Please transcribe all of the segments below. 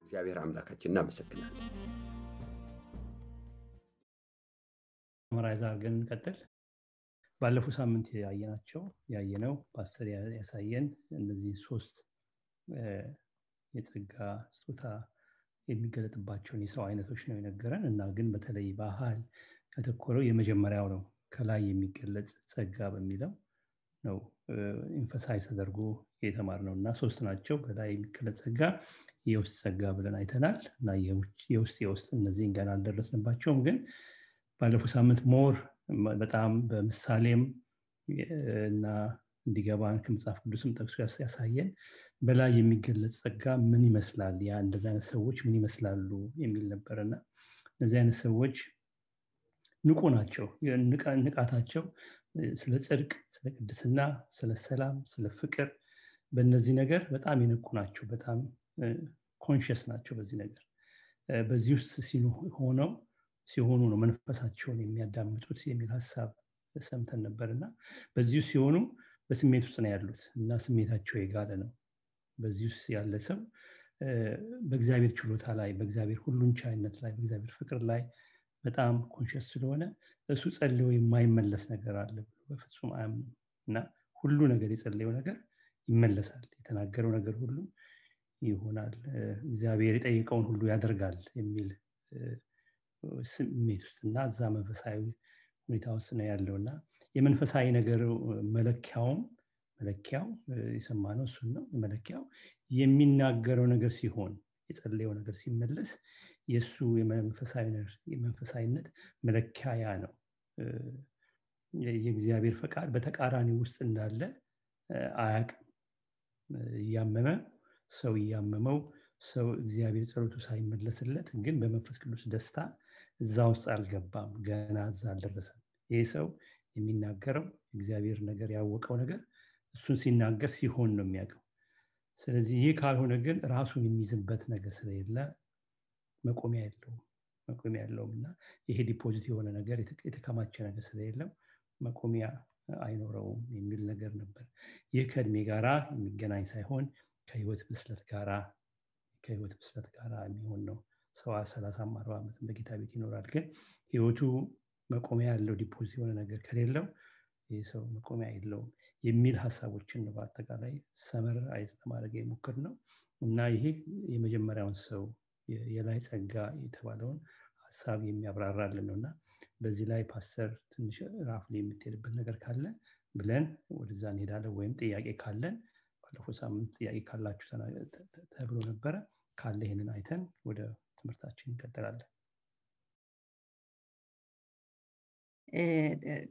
እግዚአብሔር አምላካችን እናመሰግናለን። መራይዛ ግን ቀጥል ባለፈው ሳምንት ያየነው ፓስተር ያሳየን እነዚህ ሶስት የጸጋ ስጦታ የሚገለጥባቸውን የሰው አይነቶች ነው የነገረን እና ግን በተለይ ባህል ያተኮረው የመጀመሪያው ነው ከላይ የሚገለጽ ጸጋ በሚለው ነው ኢንፈሳይዝ ተደርጎ የተማርነው እና ሶስት ናቸው በላይ የሚገለጽ ጸጋ የውስጥ ጸጋ ብለን አይተናል እና የውስጥ እነዚህን ገና አልደረስንባቸውም ግን ባለፈው ሳምንት ሞር በጣም በምሳሌም እና እንዲገባን ከመጽሐፍ ቅዱስም ጠቅሶ ያሳየን በላይ የሚገለጽ ጸጋ ምን ይመስላል ያ እንደዚህ አይነት ሰዎች ምን ይመስላሉ የሚል ነበርና እንደዚህ አይነት ሰዎች ንቁ ናቸው ንቃታቸው ስለ ጽድቅ ስለ ቅድስና ስለ ሰላም ስለ ፍቅር በእነዚህ ነገር በጣም ይነቁ ናቸው በጣም ኮንሺየስ ናቸው በዚህ ነገር በዚህ ውስጥ ሲሆኑ ነው መንፈሳቸውን የሚያዳምጡት የሚል ሐሳብ ሰምተን ነበርና በዚህ ውስጥ ሲሆኑ በስሜት ውስጥ ነው ያሉት እና ስሜታቸው የጋለ ነው በዚህ ውስጥ ያለ ሰው በእግዚአብሔር ችሎታ ላይ በእግዚአብሔር ሁሉን ቻይነት ላይ በእግዚአብሔር ፍቅር ላይ በጣም ኮንሺየስ ስለሆነ እሱ ጸልዮ የማይመለስ ነገር አለ ብሎ በፍጹም አያምንም እና ሁሉ ነገር የጸለየው ነገር ይመለሳል የተናገረው ነገር ሁሉ ይሆናል እግዚአብሔር የጠየቀውን ሁሉ ያደርጋል የሚል ስሜት ውስጥና እዛ መንፈሳዊ ሁኔታ ውስጥ ነው ያለውና የመንፈሳዊ ነገር መለኪያው የሰማነው እሱን ነው መለኪያው የሚናገረው ነገር ሲሆን የጸለየው ነገር ሲመለስ የሱ የመንፈሳዊነት መለኪያ ነው የእግዚአብሔር ፈቃድ በተቃራኒ ውስጥ እንዳለ አያውቅም ያመመው ሰው እግዚአብሔር ጸሎቱ ሳይመለስለት ግን በመንፈስ ቅዱስ ደስታ እዛ ውስጥ አልገባም ገና እዛ አልደረሰም ይሄ ሰው የሚናገረው እግዚአብሔር ነገር ያወቀው ነገር እሱን ሲናገር ሲሆን ነው የሚያውቀው ስለዚህ ይሄ ካልሆነ ግን ራሱን የሚይዝበት ነገር ስለሌለ መቆሚያ የለውምና ይሄ ዲፖዚት የሆነ ነገር የተከማቸ ነገር ስለሌለው መቆሚያ አይኖረውም የሚል ነገር ነበር ይህ ከእድሜ ጋራ የሚገናኝ ሳይሆን ከህይወት ብስለት ጋራ የሚሆን ነው ሰው 30-40 ዓመት በጌታ ቤት ይኖራል ግን ህይወቱ መቆሚያ ያለው ዲፖዚት የሆነ ነገር ከሌለው ይህ ሰው መቆሚያ የለውም የሚል ሐሳቦችን ነው በአጠቃላይ ሰመር አይዝ ለማድረግ የሞከርነው እና ይሄ የመጀመሪያውን ሰው የላይ ጸጋ የተባለውን ሐሳብ የሚያብራራልን ነውና በዚህ ላይ ፓስተር ትንሽ ራፍሊ የምትሄድበት ነገር ካለ ብለን ወደዛ እንሄዳለን ወይም ጥያቄ ካለን ባለፈው ሳምንት ጥያቄ ካላችሁ ተብሎ ነበረ ካለ ይሄንን አይተን ወደ ትምህርታችን እንቀጥላለን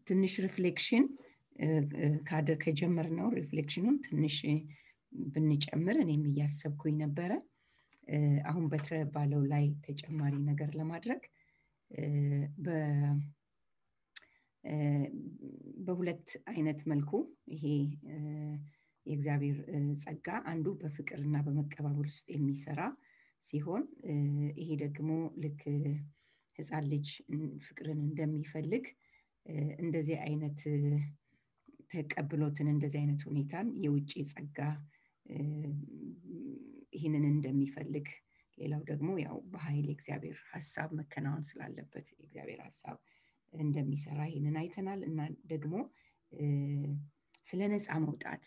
ትንሽ ሪፍሌክሽን ከጀመርነው ሪፍሌክሽኑን ትንሽ ብንጨምር እኔም እያሰብኩኝ ነበረ አሁን ባለው ላይ ተጨማሪ ነገር ለማድረግ በሁለት አይነት መልኩ ይሄ የእግዚአብሔር ጸጋ አንዱ በፍቅርና በመቀባበል ውስጥ የሚሰራ ሲሆን ይሄ ደግሞ ልክ ህፃን ልጅ ፍቅርን እንደሚፈልግ እንደዚህ አይነት ተቀብሎትን እንደዚህ አይነት ሁኔታን የውጪ ጸጋ ይሄንን እንደሚፈልግ ሌላው ደግሞ ያው በኃይል እግዚአብሔር ሐሳብ መከናወን ስላለበት እግዚአብሔር ሐሳብ እንደሚሰራ ይሄንን አይተናል እና ደግሞ ስለ ነፃ መውጣት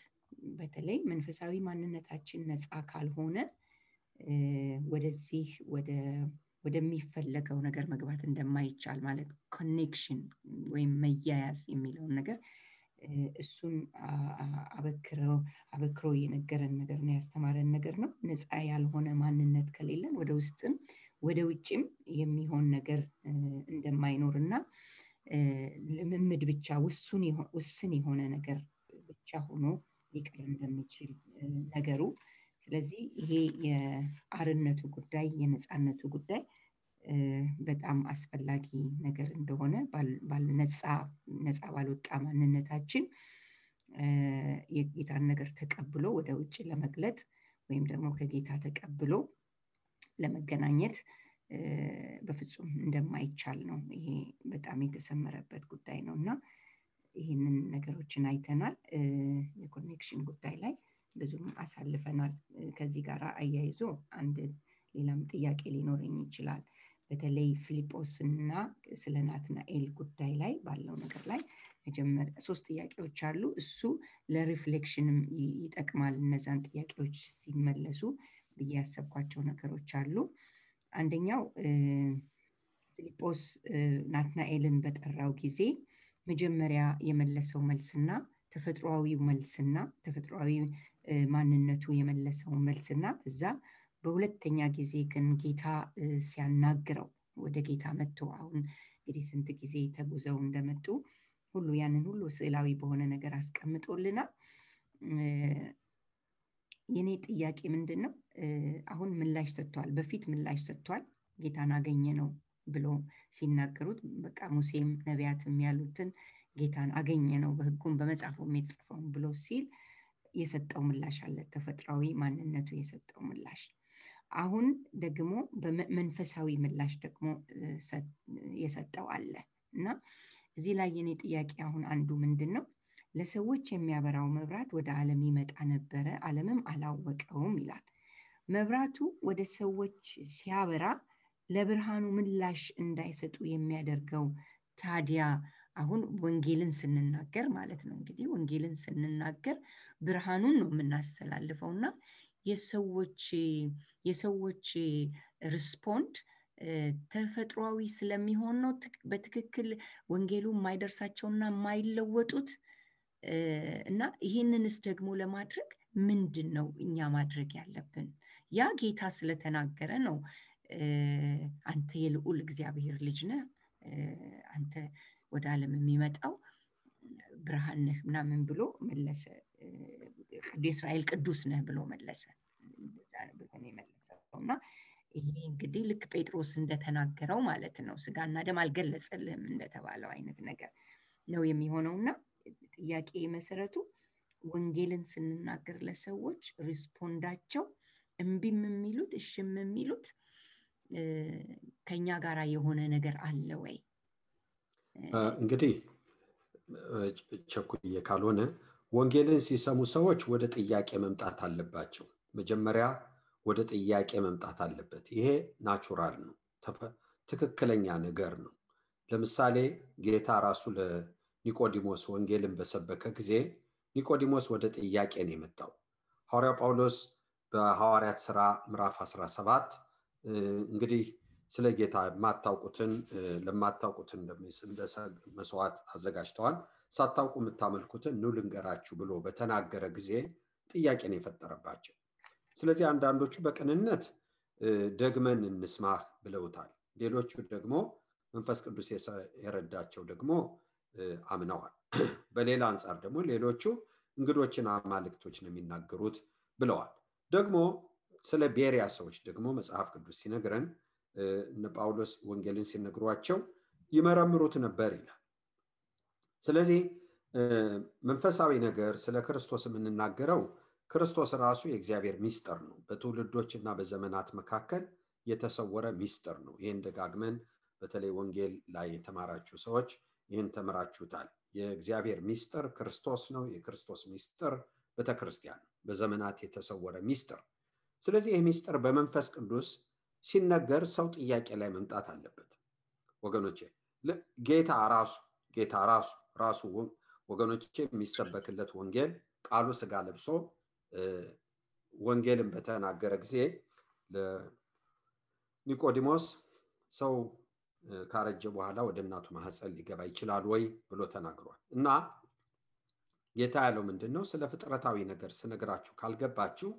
በተለይ መንፈሳዊ ማንነታችን ነፃ ካልሆነ ወደዚህ ወደሚፈለገው ነገር መግባት እንደማይቻል ማለት ኮኔክሽን ወይም መያያዝ የሚለውን ነገር እሱን አበክሮ የነገረን ነገር ነው ያስተማረን ነገር ነው ነፃ ያልሆነ ማንነት ከሌለን ወደ ውስጥም ወደ ውጭም የሚሆን ነገር እንደማይኖርና ልምምድ ብቻ ውስን የሆነ ነገር ብቻ ሆኖ ሊቀር እንደሚችል ነገሩ ስለዚህ ይሄ የአርነቱ ጉዳይ የነፃነቱ ጉዳይ በጣም አስፈላጊ ነገር እንደሆነ ነፃ ባልወጣ ማንነታችን የጌታን ነገር ተቀብሎ ወደ ውጭ ለመግለጥ ወይም ደግሞ ከጌታ ተቀብሎ ለመገናኘት በፍጹም እንደማይቻል ነው ይሄ በጣም የተሰመረበት ጉዳይ ነውና ይሄንን ነገሮችን አይተናል የኮኔክሽን ጉዳይ ላይ ብዙም አሳልፈናል። ከዚህ ጋር አያይዞ አንድ ሌላም ጥያቄ ሊኖረኝ ይችላል። በተለይ ፊልጶስና ስለ ናትናኤል ጉዳይ ላይ ባለው ነገር ላይ መጀመሪያ 3 ጥያቄዎች አሉ። እሱ ለሪፍሌክሽንም ይጠቅማል። እነዛን ጥያቄዎች ሲመለሱ ያሰብኳቸው ነገሮች አሉ። አንደኛው ፊልጶስ ናትናኤልን በጠራው ጊዜ መጀመሪያ የመለሰው መልስና ተፈጥሯዊ መልስና ተፈጥሯዊ ማንነቱ የመለሰው መልስና እዛ በሁለተኛ ጊዜ ግን ጌታ ሲያናግረው ወደ ጌታ መጥቶ አሁን እንግዲህ ስንት ጊዜ ተጉዘው እንደመጡ ሁሉ ያንን ሁሉ ስዕላዊ በሆነ ነገር አስቀምጦልናል። የኔ ጥያቄ ምንድነው? አሁን ምላሽ ሰጥቷል። በፊት ምላሽ ሰጥቷል። ጌታን አገኘ ነው ብሎ ሲናገሩት በቃ ሙሴም ነቢያትም ያሉትን ጌታን አገኘ ነው በሕጉም በመጽሐፉም የተጻፈውን ብሎ ሲል የሰጠው ምላሽ አለ። ተፈጥሯዊ ማንነቱ የሰጠው ምላሽ። አሁን ደግሞ በመንፈሳዊ ምላሽ ደግሞ የሰጠው አለ እና እዚህ ላይ የኔ ጥያቄ አሁን አንዱ ምንድነው? ለሰዎች የሚያበራው መብራት ወደ ዓለም ይመጣ ነበረ፣ ዓለምም አላወቀውም ይላል። መብራቱ ወደ ሰዎች ሲያበራ ለብርሃኑ ምላሽ እንዳይሰጡ የሚያደርገው ታዲያ አሁን ወንጌልን ስንናገር ማለት ነው። እንግዲህ ወንጌልን ስንናገር ብርሃኑን ነው የምናስተላልፈውና የሰዎች ሪስፖንድ ተፈጥሯዊ ስለሚሆን ነው በትክክል ወንጌሉ የማይደርሳቸውና የማይለወጡት። እና ይህንንስ ደግሞ ለማድረግ ምንድነው እኛ ማድረግ ያለብን? ያ ጌታ ስለተናገረ ነው አንተ የልዑል እግዚአብሔር ልጅ ነህ፣ አንተ ወደ ዓለም የሚመጣው ብርሃን ነህ ምናምን ብሎ መለሰ። የእስራኤል ቅዱስ ነህ ብሎ መለሰ። እንደዛ ብሎ ነው የመለሰውና ይሄ እንግዲህ ልክ ጴጥሮስ እንደተናገረው ማለት ነው። ስጋና ደም አልገለጸልህም እንደተባለው አይነት ነገር ነው የሚሆነውና ጥያቄ መሰረቱ ወንጌልን ስንናገር ለሰዎች ሪስፖንዳቸው እምቢም የሚሉት እሽም የሚሉት ከኛ ጋራ የሆነ ነገር አለ ወይ? እንግዲህ ቸኩዬ ካልሆነ ወንጌልን ሲሰሙ ሰዎች ወደ ጥያቄ መምጣት አለባቸው። መጀመሪያ ወደ ጥያቄ መምጣት አለበት። ይሄ ናቹራል ነው፣ ትክክለኛ ነገር ነው። ለምሳሌ ጌታ ራሱ ለኒቆዲሞስ ወንጌልን በሰበከ ጊዜ ኒቆዲሞስ ወደ ጥያቄ ነው የመጣው። ሐዋርያው ጳውሎስ በሐዋርያት ሥራ ምዕራፍ 17 እንግዲህ ስለ ጌታ የማታውቁትን ለማታውቁትን እንደ መስዋዕት አዘጋጅተዋል፣ ሳታውቁ የምታመልኩትን ኑ ልንገራችሁ ብሎ በተናገረ ጊዜ ጥያቄ ነው የፈጠረባቸው። ስለዚህ አንዳንዶቹ በቅንነት ደግመን እንስማህ ብለውታል። ሌሎቹ ደግሞ መንፈስ ቅዱስ የረዳቸው ደግሞ አምነዋል። በሌላ አንጻር ደግሞ ሌሎቹ እንግዶችን አማልክቶች ነው የሚናገሩት ብለዋል። ደግሞ ስለ ቤሪያ ሰዎች ደግሞ መጽሐፍ ቅዱስ ሲነግረን እነ ጳውሎስ ወንጌልን ሲነግሯቸው ይመረምሩት ነበር ይላል። ስለዚህ መንፈሳዊ ነገር ስለ ክርስቶስ የምንናገረው ክርስቶስ ራሱ የእግዚአብሔር ሚስጥር ነው። በትውልዶችና በዘመናት መካከል የተሰወረ ሚስጥር ነው። ይህን ደጋግመን በተለይ ወንጌል ላይ የተማራችሁ ሰዎች ይህን ተምራችሁታል። የእግዚአብሔር ሚስጥር ክርስቶስ ነው። የክርስቶስ ሚስጥር ቤተክርስቲያን ነው፣ በዘመናት የተሰወረ ሚስጥር። ስለዚህ ይህ ሚስጥር በመንፈስ ቅዱስ ሲነገር ሰው ጥያቄ ላይ መምጣት አለበት። ወገኖቼ ጌታ ራሱ ወገኖቼ የሚሰበክለት ወንጌል ቃሉ ስጋ ለብሶ ወንጌልን በተናገረ ጊዜ ለኒቆዲሞስ ሰው ካረጀ በኋላ ወደ እናቱ ማህፀን ሊገባ ይችላል ወይ ብሎ ተናግሯል። እና ጌታ ያለው ምንድነው? ስለ ፍጥረታዊ ነገር ስነግራችሁ ካልገባችሁ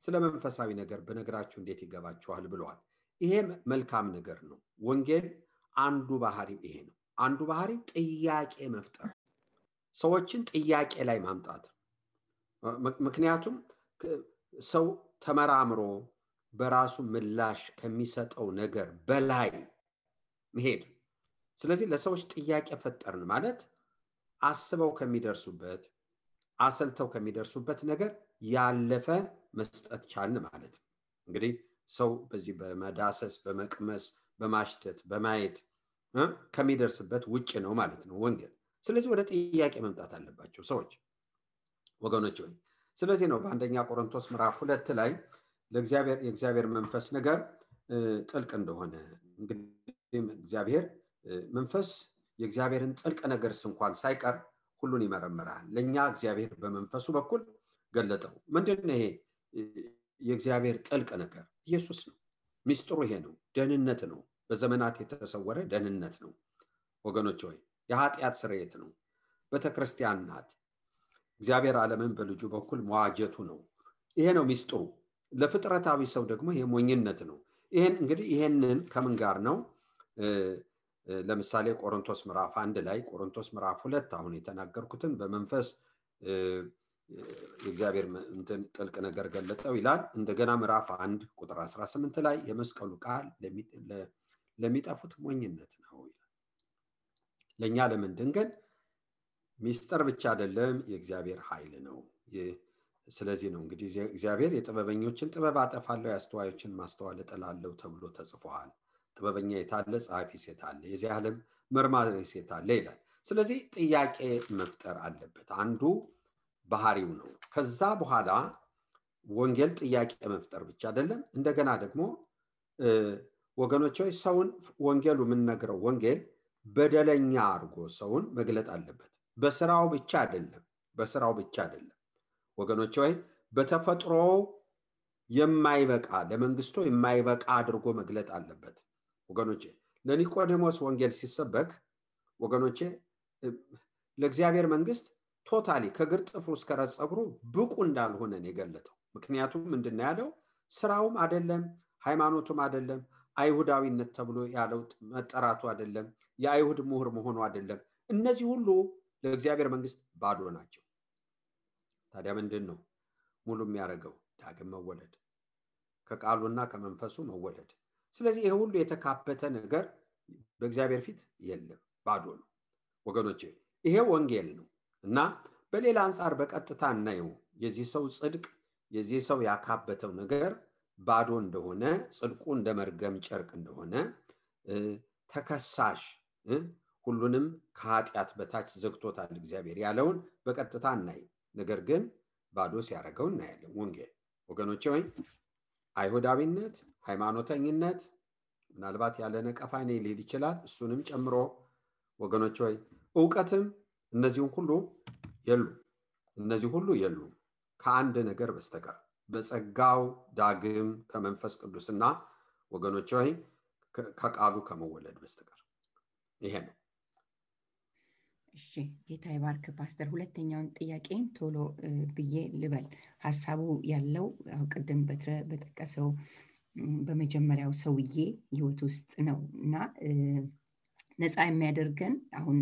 ስለ መንፈሳዊ ነገር በነገራችሁ እንዴት ይገባችኋል ብለዋል። ይሄ መልካም ነገር ነው። ወንጌል አንዱ ባህሪው ይሄ ነው። አንዱ ባህሪው ጥያቄ መፍጠር፣ ሰዎችን ጥያቄ ላይ ማምጣት። ምክንያቱም ሰው ተመራምሮ በራሱ ምላሽ ከሚሰጠው ነገር በላይ መሄድ። ስለዚህ ለሰዎች ጥያቄ ፈጠርን ማለት አስበው ከሚደርሱበት አሰልተው ከሚደርሱበት ነገር ያለፈ መስጠት ቻልን ማለት ነው። እንግዲህ ሰው በዚህ በመዳሰስ በመቅመስ በማሽተት በማየት ከሚደርስበት ውጭ ነው ማለት ነው ወንጌል። ስለዚህ ወደ ጥያቄ መምጣት አለባቸው ሰዎች ወገኖች ሆይ። ስለዚህ ነው በአንደኛ ቆሮንቶስ ምዕራፍ 2 ላይ የእግዚአብሔር መንፈስ ነገር ጥልቅ እንደሆነ እንግዲህ እግዚአብሔር መንፈስ የእግዚአብሔርን ጥልቅ ነገር እንኳን ሳይቀር ሁሉን ይመረምራል። ለኛ እግዚአብሔር በመንፈሱ በኩል ገለጠው። ምንድነው ይሄ የእግዚአብሔር ጥልቅ ነገር? ኢየሱስ ነው። ሚስጥሩ ይሄ ነው። ደህንነት ነው። በዘመናት የተሰወረ ደህንነት ነው ወገኖች ሆይ። የኃጢአት ስርየት ነው። ቤተክርስቲያን ናት። እግዚአብሔር ዓለምን በልጁ በኩል መዋጀቱ ነው። ይሄ ነው ሚስጥሩ። ለፍጥረታዊ ሰው ደግሞ ይሄ ሞኝነት ነው። ይሄንን ከምን ጋር ነው? ለምሳሌ ቆሮንቶስ ምዕራፍ 1 ላይ ቆሮንቶስ ምዕራፍ 2 አሁን የተናገርኩትን በመንፈስ የእግዚአብሔር ጥልቅ ነገር ገለጠው ይላል። እንደገና ምዕራፍ 1 ቁጥር 18 ላይ የመስቀሉ ቃል ለሚጠፉት ሞኝነት ነው ይላል። ለኛ ለምንድን ግን ሚስጥር ብቻ አይደለም፣ የእግዚአብሔር ኃይል ነው። ስለዚህ ነው እንግዲህ እግዚአብሔር የጥበበኞችን ጥበብ አጠፋለሁ፣ የአስተዋዮችን ማስተዋል እጥላለሁ ተብሎ ተጽፏል። ጥበበኛ የታለ? ጸሐፊ ሴት አለ? የዚህ ዓለም መርማሪ ሴት አለ ይላል። ስለዚህ ጥያቄ መፍጠር አለበት። አንዱ ባህሪው ነው። ከዛ በኋላ ወንጌል ጥያቄ መፍጠር ብቻ አይደለም፣ እንደገና ደግሞ ወገኖች ሆይ ሰውን ወንጌሉ የምንነግረው ወንጌል በደለኛ አድርጎ ሰውን መግለጥ አለበት። በስራው ብቻ አይደለም ወገኖች ሆይ፣ በተፈጥሮ የማይበቃ ለመንግስቱ የማይበቃ አድርጎ መግለጥ አለበት። ወገኖቼ ለኒቆዲሞስ ወንጌል ሲሰበክ ወገኖቼ ለእግዚአብሔር መንግስት ቶታሊ ከግር ጥፍሩ እስከ ራስ ፀጉሩ ብቁ እንዳልሆነ ነው የገለጠው። ምክንያቱም ምንድነው ያለው? ስራውም አይደለም፣ ሃይማኖቱም አይደለም፣ አይሁዳዊነት ተብሎ ያለው መጠራቱ አይደለም፣ የአይሁድ ምሁር መሆኑ አይደለም። እነዚህ ሁሉ ለእግዚአብሔር መንግስት ባዶ ናቸው። ታዲያ ምንድነው ሙሉ የሚያደርገው? ዳግም መወለድ፣ ከቃሉና ከመንፈሱ መወለድ። ስለዚህ ይሄ ሁሉ የተካበተ ነገር በእግዚአብሔር ፊት የለም፣ ባዶ ነው ወገኖቼ። ይሄ ወንጌል ነው። እና በሌላ አንፃር በቀጥታ እናየው የዚህ ሰው ጽድቅ፣ የዚህ ሰው ያካበተው ነገር ባዶ እንደሆነ፣ ጽድቁ እንደ መርገም ጨርቅ እንደሆነ፣ ተከሳሽ ሁሉንም ከኃጢአት በታች ዘግቶታል እግዚአብሔር ያለውን በቀጥታ እናይ። ነገር ግን ባዶ ሲያደርገው እናያለን ወንጌል ወገኖቼ። ወይ አይሁዳዊነት፣ ሃይማኖተኝነት ምናልባት ያለ ነቀፋ ነው ሊል ይችላል፣ እሱንም ጨምሮ ወገኖቼ ወይ ዕውቀትም እነዚህ ሁሉ የሉ ከአንድ ነገር በስተቀር በጸጋው ዳግም ከመንፈስ ቅዱስና ወገኖች ሆይ ከቃሉ ከመወለድ በስተቀር። ይሄ ነው። እሺ ጌታ ይባርክ ፓስተር። ሁለተኛውን ጥያቄን ቶሎ ብዬ ልበል። ሐሳቡ ያለው ቅድም በጠቀሰው በመጀመሪያው ሰውዬ ህይወት ውስጥ ነው እና ነፃ የሚያደርገን አሁን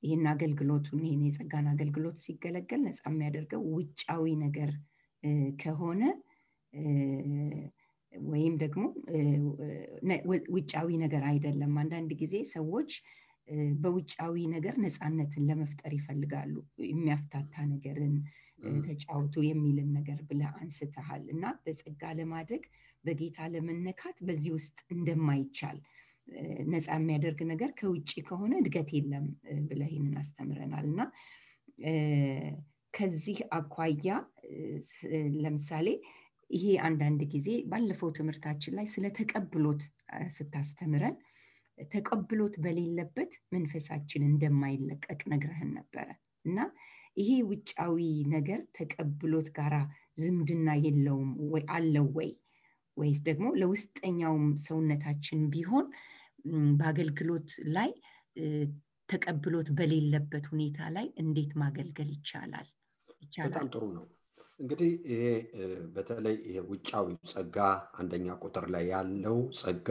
ይሄን አገልግሎቱን ይሄን የጸጋን አገልግሎት ሲገለገል ነፃ የሚያደርገው ውጫዊ ነገር ከሆነ ወይም ደግሞ ውጫዊ ነገር አይደለም። አንዳንድ ጊዜ ሰዎች በውጫዊ ነገር ነፃነትን ለመፍጠር ይፈልጋሉ። የሚያፍታታ ነገርን ተጫውቱ የሚልን ነገር ብለህ አንስተሃል እና በጸጋ ለማደግ በጌታ ለመነካት በዚህ ውስጥ እንደማይቻል ነፃ የሚያደርግ ነገር ከውጪ ከሆነ እድገት የለም ብለህ ይህንን አስተምረናል እና ከዚህ አኳያ ለምሳሌ ይሄ አንዳንድ ጊዜ ባለፈው ትምህርታችን ላይ ስለ ተቀብሎት ስታስተምረን ተቀብሎት በሌለበት መንፈሳችን እንደማይለቀቅ ነግረህን ነበረ እና ይሄ ውጫዊ ነገር ተቀብሎት ጋራ ዝምድና የለውም ወይ አለው ወይስ ደግሞ ለውስጠኛውም ሰውነታችን ቢሆን በአገልግሎት ላይ ተቀብሎት በሌለበት ሁኔታ ላይ እንዴት ማገልገል ይቻላል? በጣም ጥሩ ነው። እንግዲህ ይሄ በተለይ ይሄ ውጫዊ ጸጋ አንደኛ ቁጥር ላይ ያለው ጸጋ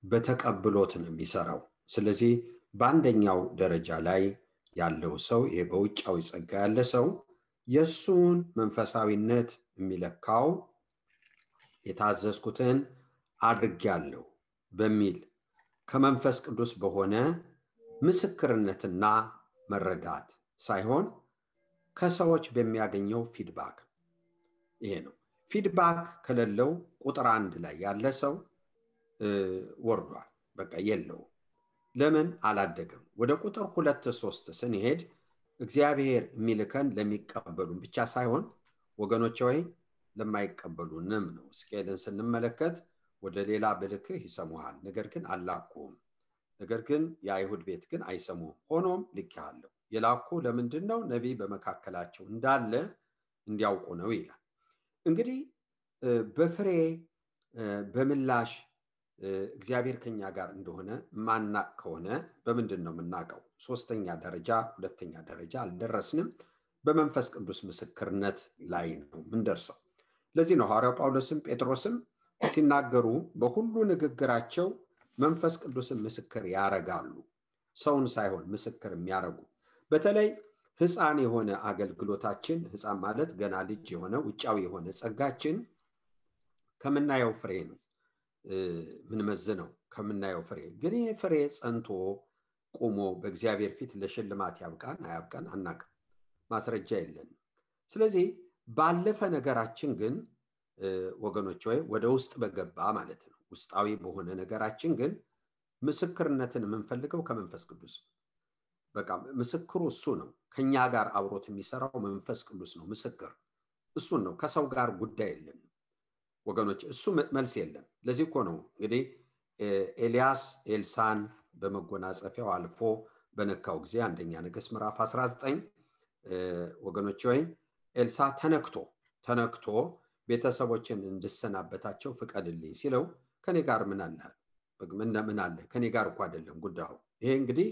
በተቀብሎት ነው የሚሰራው። ስለዚህ በአንደኛው ደረጃ ላይ ያለው ሰው ይሄ በውጫዊ ጸጋ ያለ ሰው የሱን መንፈሳዊነት የሚለካው የታዘዝኩትን አድርጌያለሁ በሚል ከመንፈስ ቅዱስ በሆነ ምስክርነትና መረዳት ሳይሆን ከሰዎች በሚያገኘው ፊድባክ። ይሄ ነው። ፊድባክ ከሌለው ቁጥር 1 ላይ ያለ ሰው ወርዷል፣ በቃ የለው። ለምን አላደገም? ወደ ቁጥር 2 3 ስንሄድ እግዚአብሔር የሚልከን ለሚቀበሉን ብቻ ሳይሆን ወገኖቼ ሆይ ለማይቀበሉንም ነው። ሕዝቅኤልን ስንመለከት ወደ ሌላ ብልክህ ይሰሙሃል፣ ነገር ግን አላኩም። ነገር ግን የአይሁድ ቤት ግን አይሰሙም። ሆኖም ልኬሃለሁ። የላኩ ለምንድን ነው? ነቢይ በመካከላቸው እንዳለ እንዲያውቁ ነው ይላል። እንግዲህ በፍሬ በምላሽ እግዚአብሔር ከኛ ጋር እንደሆነ ማናቅ ከሆነ በምንድን ነው የምናውቀው? ሶስተኛ ደረጃ ሁለተኛ ደረጃ አልደረስንም። በመንፈስ ቅዱስ ምስክርነት ላይ ነው ምንደርሰው። ለዚህ ነው ሐዋርያው ጳውሎስም ጴጥሮስም ሲናገሩ በሁሉ ንግግራቸው መንፈስ ቅዱስን ምስክር ያረጋሉ። ሰውን ሳይሆን ምስክር የሚያረጉ። በተለይ ሕፃን የሆነ አገልግሎታችን፣ ሕፃን ማለት ገና ልጅ የሆነ ውጫዊ የሆነ ጸጋችን ከምናየው ፍሬ ነው ምንመዝነው፣ ከምናየው ፍሬ። ግን ይህ ፍሬ ጸንቶ ቆሞ በእግዚአብሔር ፊት ለሽልማት ያብቃን አያብቃን አናውቅም፣ ማስረጃ የለንም። ስለዚህ ባለፈ ነገራችን ግን ወገኖች ሆይ ወደ ውስጥ በገባ ማለት ነው ውስጣዊ በሆነ ነገራችን ግን ምስክርነትን የምንፈልገው ከመንፈስ ቅዱስ። በቃ ምስክሩ እሱ ነው። ከኛ ጋር አብሮት የሚሰራው መንፈስ ቅዱስ ነው። ምስክር እሱን ነው። ከሰው ጋር ጉዳይ የለም ወገኖች፣ እሱ መልስ የለም። ለዚህ እኮ ነው እንግዲህ ኤልያስ ኤልሳን በመጎናጸፊያው አልፎ በነካው ጊዜ አንደኛ ነገሥት ምዕራፍ 19 ወገኖች ሆይ ኤልሳ ተነክቶ ቤተሰቦችን እንድሰናበታቸው ፍቀድልኝ ሲለው ከኔ ጋር ምን አለ? ከኔ ጋር እኮ አይደለም ጉዳዩ። ይሄ እንግዲህ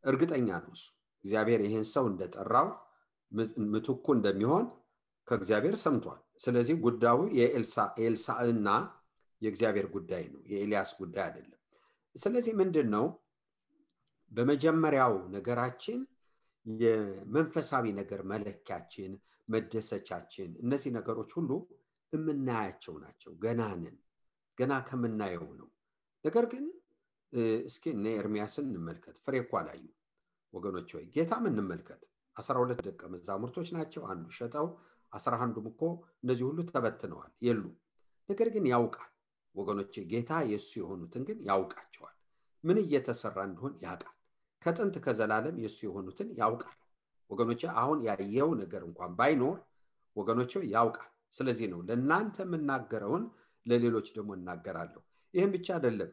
እርግጠኛ ነው እሱ እግዚአብሔር ይሄን ሰው እንደጠራው ምትኩ እንደሚሆን ከእግዚአብሔር ሰምቷል። ስለዚህ ጉዳዩ የኤልሳዕና የእግዚአብሔር ጉዳይ ነው፣ የኤልያስ ጉዳይ አይደለም። ስለዚህ ምንድነው በመጀመሪያው ነገራችን የመንፈሳዊ ነገር መለኪያችን መደሰቻችን እነዚህ ነገሮች ሁሉ የምናያቸው ናቸው። ገና ከምናየው ነው። ነገር ግን እስኪ እነ ኤርሚያስን እንመልከት። ፍሬ እኮ አላዩ ወገኖች ሆይ ጌታም እንመልከት። 12 ደቀ መዛሙርቶች ናቸው። አንዱ ሸጠው 11ዱም እኮ እነዚህ ሁሉ ተበትነዋል የሉ። ነገር ግን ያውቃል ወገኖች፣ ጌታ የሱ የሆኑትን ግን ያውቃቸዋል። ምን እየተሰራ እንደሆነ ያውቃል። ከጥንት ከዘላለም የሱ የሆኑትን ያውቃል ወገኖች። አሁን ያየው ነገር እንኳን ባይኖር ወገኖች ያውቃል። ስለዚህ ነው ለእናንተ የምናገረውን ለሌሎች ደግሞ እናገራለሁ። ይህም ብቻ አይደለም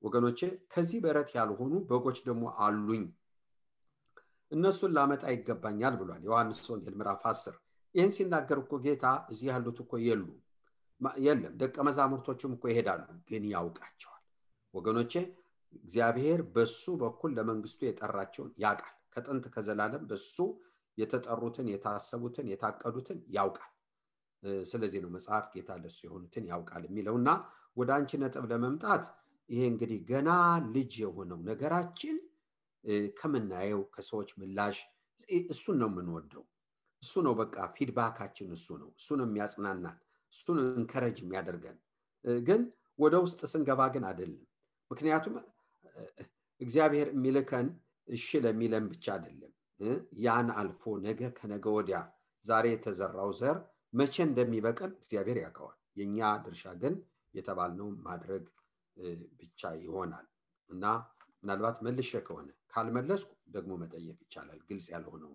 ወገኖች፣ ከዚህ በረት ያልሆኑ በጎች ደግሞ አሉኝ፣ እነሱን ላመጣ ይገባኛል ብሏል ዮሐንስ ወንጌል ምዕራፍ 10። ይህን ሲናገር እኮ ጌታ እዚህ ያሉት እኮ የለም፣ ደቀ መዛሙርቶቹም እኮ ይሄዳሉ፣ ግን ያውቃቸዋል ወገኖቼ። እግዚአብሔር በሱ በኩል ለመንግስቱ የጠራቸውን ያውቃል። ከጥንት ከዘላለም በሱ የተጠሩትን የታሰቡትን የታቀዱትን ያውቃል። ስለዚህ ነው መጽሐፍ ጌታ ለሱ የሆኑትን ያውቃል የሚለውና ወደ አንቺ ነጥብ ለመምጣት ይሄ እንግዲህ ገና ልጅ የሆነው ነገራችን ከምናየው ከሰዎች ምላሽ እሱን ነው የምንወደው። እሱ ነው በቃ ፊድባካችን እሱ ነው የሚያጽናናን፣ እሱ ነው እንከረጅ የሚያደርገን። ግን ወደ ውስጥ ስንገባ ግን አይደለም። ምክንያቱም እግዚአብሔር የሚልከን እሺ ለሚለን ብቻ አይደለም። ያን አልፎ ነገ ከነገ ወዲያ ዛሬ የተዘራው ዘር መቼ እንደሚበቅል እግዚአብሔር ያውቀዋል። የኛ ድርሻ ግን የተባልነው ማድረግ ብቻ ይሆናል። እና ምናልባት መልሼ ከሆነ ካልመለስኩ ደግሞ መጠየቅ ይቻላል ግልጽ ያልሆነው።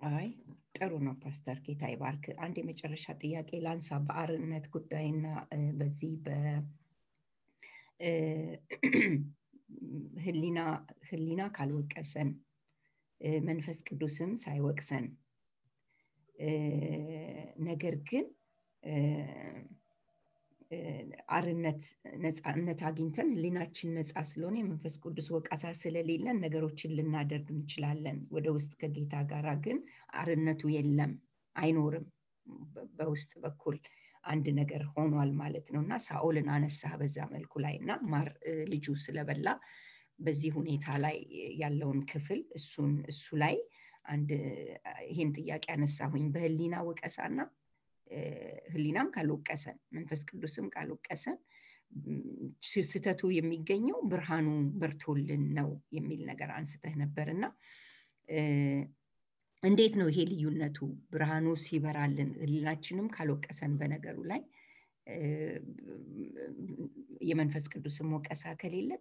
አይ ጥሩ ነው ፓስተር፣ ጌታ ይባርክ። አንድ የመጨረሻ ጥያቄ ላንሳ በአርነት ጉዳይና በዚህ ህሊና ካልወቀሰን መንፈስ ቅዱስም ሳይወቅሰን ነገር ግን አርነት ነፃነት አግኝተን ህሊናችን ነፃ ስለሆነ የመንፈስ ቅዱስ ወቀሳ ስለሌለን ነገሮችን ልናደርግ እንችላለን። ወደ ውስጥ ከጌታ ጋር ግን አርነቱ የለም፣ አይኖርም። በውስጥ በኩል አንድ ነገር ሆኗል ማለት ነውና ሳኦልን አነሳ በዛ መልኩ ላይና ማር ልጁ ስለበላ በዚህ ሁኔታ ላይ ያለውን ክፍል እሱ ላይ አንድ ይሄን ጥያቄ አነሳሁኝ። በህሊና ወቀሳና ህሊናም ካልወቀሰን መንፈስ ቅዱስም ካልወቀሰን ስህተቱ የሚገኘው ብርሃኑ በርቶልን ነው የሚል ነገር አንስተህ ነበርና እንዴት ነው ይሄ ልዩነቱ? ብርሃኑ ሲበራልን ህሊናችንም ካልወቀሰን በነገሩ ላይ የመንፈስ ቅዱስም ወቀሳ ከሌለ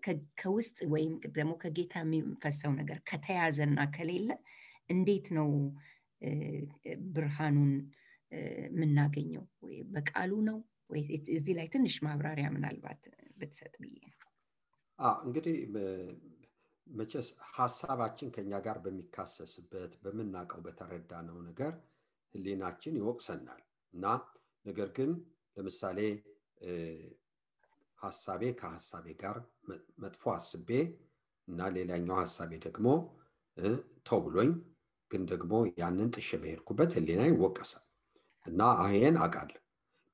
ከውስጥ ወይም ደግሞ ከጌታ የሚፈሰው ነገር ከተያዘና ከሌለ እንዴት ነው ብርሃኑን የምናገኘው? ወይ በቃሉ ነው ወይ? እዚህ ላይ ትንሽ ማብራሪያ ምናልባት ብትሰጥ ብዬ ነው። እንግዲህ መቼስ ሀሳባችን ከኛ ጋር በሚካሰስበት በምናውቀው በተረዳነው ነገር ህሊናችን ይወቅሰናል እና ነገር ግን ለምሳሌ ሀሳቤ ከሀሳቤ ጋር መጥፎ አስቤ እና ሌላኛው ሀሳቤ ደግሞ ተው ብሎኝ ግን ደግሞ ያንን ጥሼ በሄድኩበት ህሊና ይወቀሳል እና ይሄን አውቃለሁ።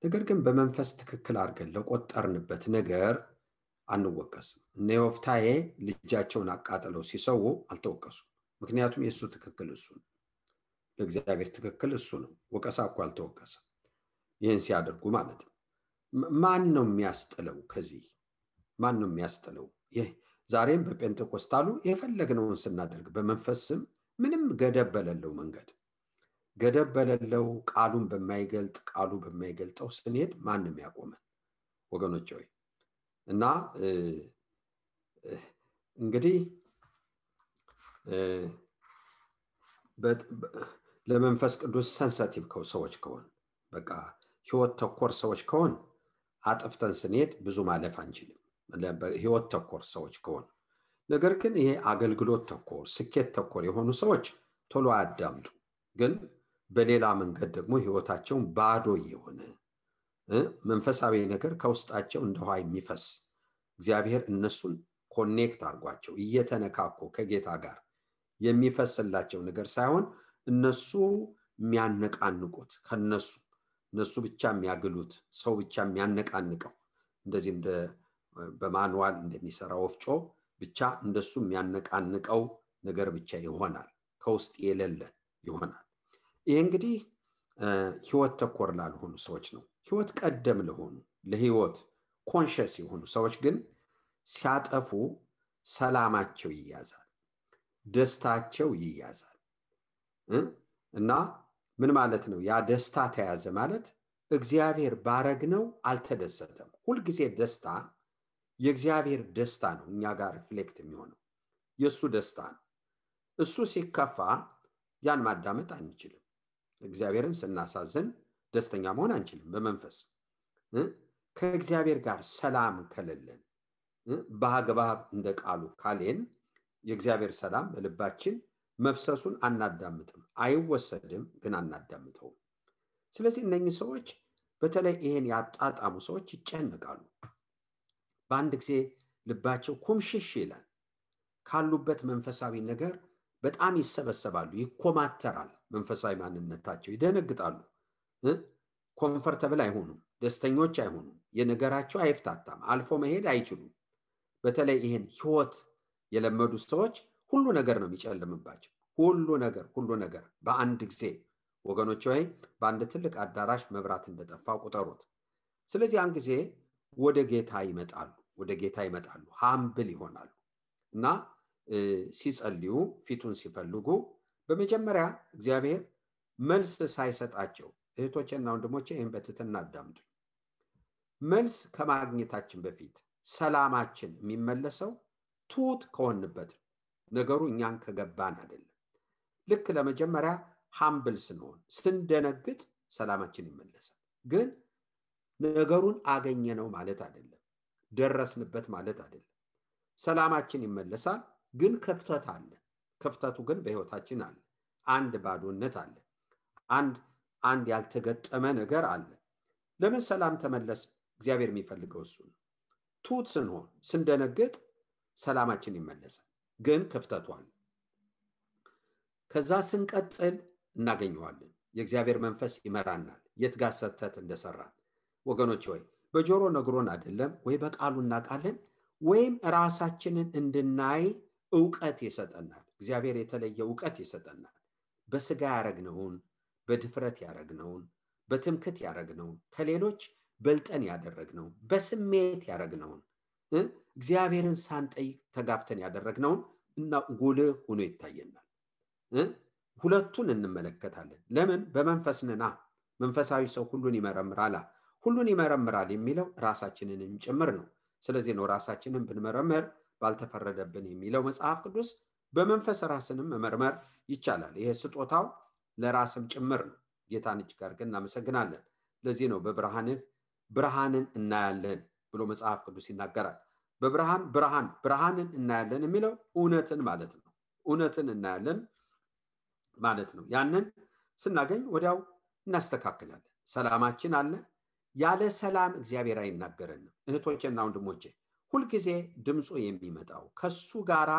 ነገር ግን በመንፈስ ትክክል አድርገን ለቆጠርንበት ነገር አንወቀስም። እነ ዮፍታሔ ልጃቸውን አቃጥለው ሲሰዉ አልተወቀሱም። ምክንያቱም የእሱ ትክክል እሱ ነው፣ ለእግዚአብሔር ትክክል እሱ ነው። ወቀሳ እኮ አልተወቀሰም ይህን ሲያደርጉ ማለት ነው። ማን ነው የሚያስጥለው? ከዚህ ማን ነው የሚያስጥለው? ይህ ዛሬም በጴንጤቆስታሉ የፈለግነውን ስናደርግ በመንፈስ ስም ምንም ገደብ በሌለው መንገድ ገደብ በሌለው ቃሉን በማይገልጥ ቃሉ በማይገልጠው ስንሄድ ማንም ያቆመን ወገኖች ሆይ። እና እንግዲህ ለመንፈስ ቅዱስ ሰንሰቲቭ ሰዎች ከሆን በቃ ህይወት ተኮር ሰዎች ከሆን አጥፍተን ስንሄድ ብዙ ማለፍ አንችልም፣ ህይወት ተኮር ሰዎች ከሆን። ነገር ግን ይሄ አገልግሎት ተኮር ስኬት ተኮር የሆኑ ሰዎች ቶሎ አያዳምጡ። ግን በሌላ መንገድ ደግሞ ህይወታቸውን ባዶ የሆነ መንፈሳዊ ነገር ከውስጣቸው እንደ ውሃ የሚፈስ እግዚአብሔር እነሱን ኮኔክት አድርጓቸው እየተነካኩ ከጌታ ጋር የሚፈስላቸው ነገር ሳይሆን እነሱ የሚያነቃንቁት እነሱ ብቻ የሚያግሉት ሰው ብቻ የሚያነቃንቀው እንደዚህ እንደ በማኑዋል እንደሚሰራ ወፍጮ ብቻ እንደሱ የሚያነቃንቀው ነገር ብቻ ይሆናል፣ ከውስጥ የሌለ ይሆናል። ይሄ እንግዲህ ህይወት ተኮር ላልሆኑ ሰዎች ነው። ህይወት ቀደም ለሆኑ ለህይወት ኮንሸስ የሆኑ ሰዎች ግን ሲያጠፉ ሰላማቸው ይያዛል፣ ደስታቸው ይያዛል። እና ምን ማለት ነው? ያ ደስታ ተያዘ ማለት እግዚአብሔር ባረግነው አልተደሰተም። ሁልጊዜ ደስታ የእግዚአብሔር ደስታ ነው እኛ ጋር ሪፍሌክት የሚሆነው የእሱ ደስታ ነው። እሱ ሲከፋ ያን ማዳመጥ አንችልም። እግዚአብሔርን ስናሳዝን ደስተኛ መሆን አንችልም። በመንፈስ ከእግዚአብሔር ጋር ሰላም ከሌለን በአግባብ እንደ ቃሉ ካሌን የእግዚአብሔር ሰላም በልባችን መፍሰሱን አናዳምጥም። አይወሰድም፣ ግን አናዳምጠውም። ስለዚህ እነኚህ ሰዎች በተለይ ይሄን ያጣጣሙ ሰዎች ይጨነቃሉ። በአንድ ጊዜ ልባቸው ኩምሽሽ ይላል። ካሉበት መንፈሳዊ ነገር በጣም ይሰበሰባሉ፣ ይኮማተራል። መንፈሳዊ ማንነታቸው ይደነግጣሉ። ኮምፈርተብል አይሆኑም፣ ደስተኞች አይሆኑም። የነገራቸው አይፍታታም፣ አልፎ መሄድ አይችሉም። በተለይ ይሄን ህይወት የለመዱ ሰዎች ሁሉ ነገር ነው የሚጨልምባቸው። ሁሉ ነገር በአንድ ጊዜ ወገኖች ወይ በአንድ ትልቅ አዳራሽ መብራት እንደጠፋ ቁጠሩት። ስለዚህ ያን ጊዜ ወደ ጌታ ይመጣሉ፣ ሃምብል ይሆናሉ እና ሲጸልዩ ፊቱን ሲፈልጉ በመጀመሪያ እግዚአብሔር መልስ ሳይሰጣቸው እህቶቼና ወንድሞቼ ይህን በትህትና አዳምጡኝ። መልስ ከማግኘታችን በፊት ሰላማችን የሚመለሰው ትሁት ከሆንበት ነገሩ እኛን ከገባን አይደለም። ልክ ለመጀመሪያ ሃምብል ስንሆን ስንደነግጥ ሰላማችን ይመለሳል። ግን ነገሩን አገኘነው ማለት አይደለም፣ ደረስንበት ማለት አይደለም። ሰላማችን ይመለሳል፣ ግን ክፍተት አለ። ክፍተቱ ግን በህይወታችን አለ። አንድ ባዶነት አለ። አንድ ያልተገጠመ ነገር አለ። ለምን ሰላም ተመለሰ? እግዚአብሔር የሚፈልገው እሱ ነው። ትሁት ስንሆን ስንደነግጥ ሰላማችን ይመለሳል፣ ግን ክፍተቱ አለ። ከዛ ስንቀጥል እናገኘዋለን። የእግዚአብሔር መንፈስ ይመራናል የት ጋር ሰተት እንደሰራን። ወገኖች ወይ በጆሮ ነግሮን አይደለም ወይ በቃሉ እናውቃለን፣ ወይም ራሳችንን እንድናይ ዕውቀት ይሰጠናል። እግዚአብሔር የተለየ ዕውቀት ይሰጠናል። በስጋ ያረግነውን፣ በድፍረት ያረግነውን፣ በትምክት ያረግነውን፣ ከሌሎች በልጠን ያደረግነውን፣ በስሜት ያረግነውን፣ እግዚአብሔርን ሳንጠይቅ ተጋፍተን ያደረግነውን እና ጉልህ ሆኖ ይታየናል። ሁለቱን እንመለከታለን። ለምን? በመንፈስ ነና። መንፈሳዊ ሰው ሁሉን ይመረምራል። ሁሉን ይመረምራል የሚለው ራሳችንንም ጭምር ነው። ስለዚህ ነው ራሳችንን ብንመረምር ባልተፈረደብን የሚለው መጽሐፍ ቅዱስ። በመንፈስ ራስንም መመርመር ይቻላል። ይሄ ስጦታው ለራስም ጭምር ነው። ጌታን እጅግ አድርገን እናመሰግናለን። ለዚህ ነው በብርሃንህ ብርሃንን እናያለን ብሎ መጽሐፍ ቅዱስ ይናገራል። ብርሃንን እናያለን የሚለው እውነትን ማለት ነው። እውነትን እናያለን ማለት ነው። ያንን ስናገኝ ወዲያው እናስተካክላለን። ሰላማችን አለ። ያለ ሰላም እግዚአብሔር አይናገረንም። እህቶቼና ወንድሞቼ ሁልጊዜ ድምፁ የሚመጣው ከሱ ጋራ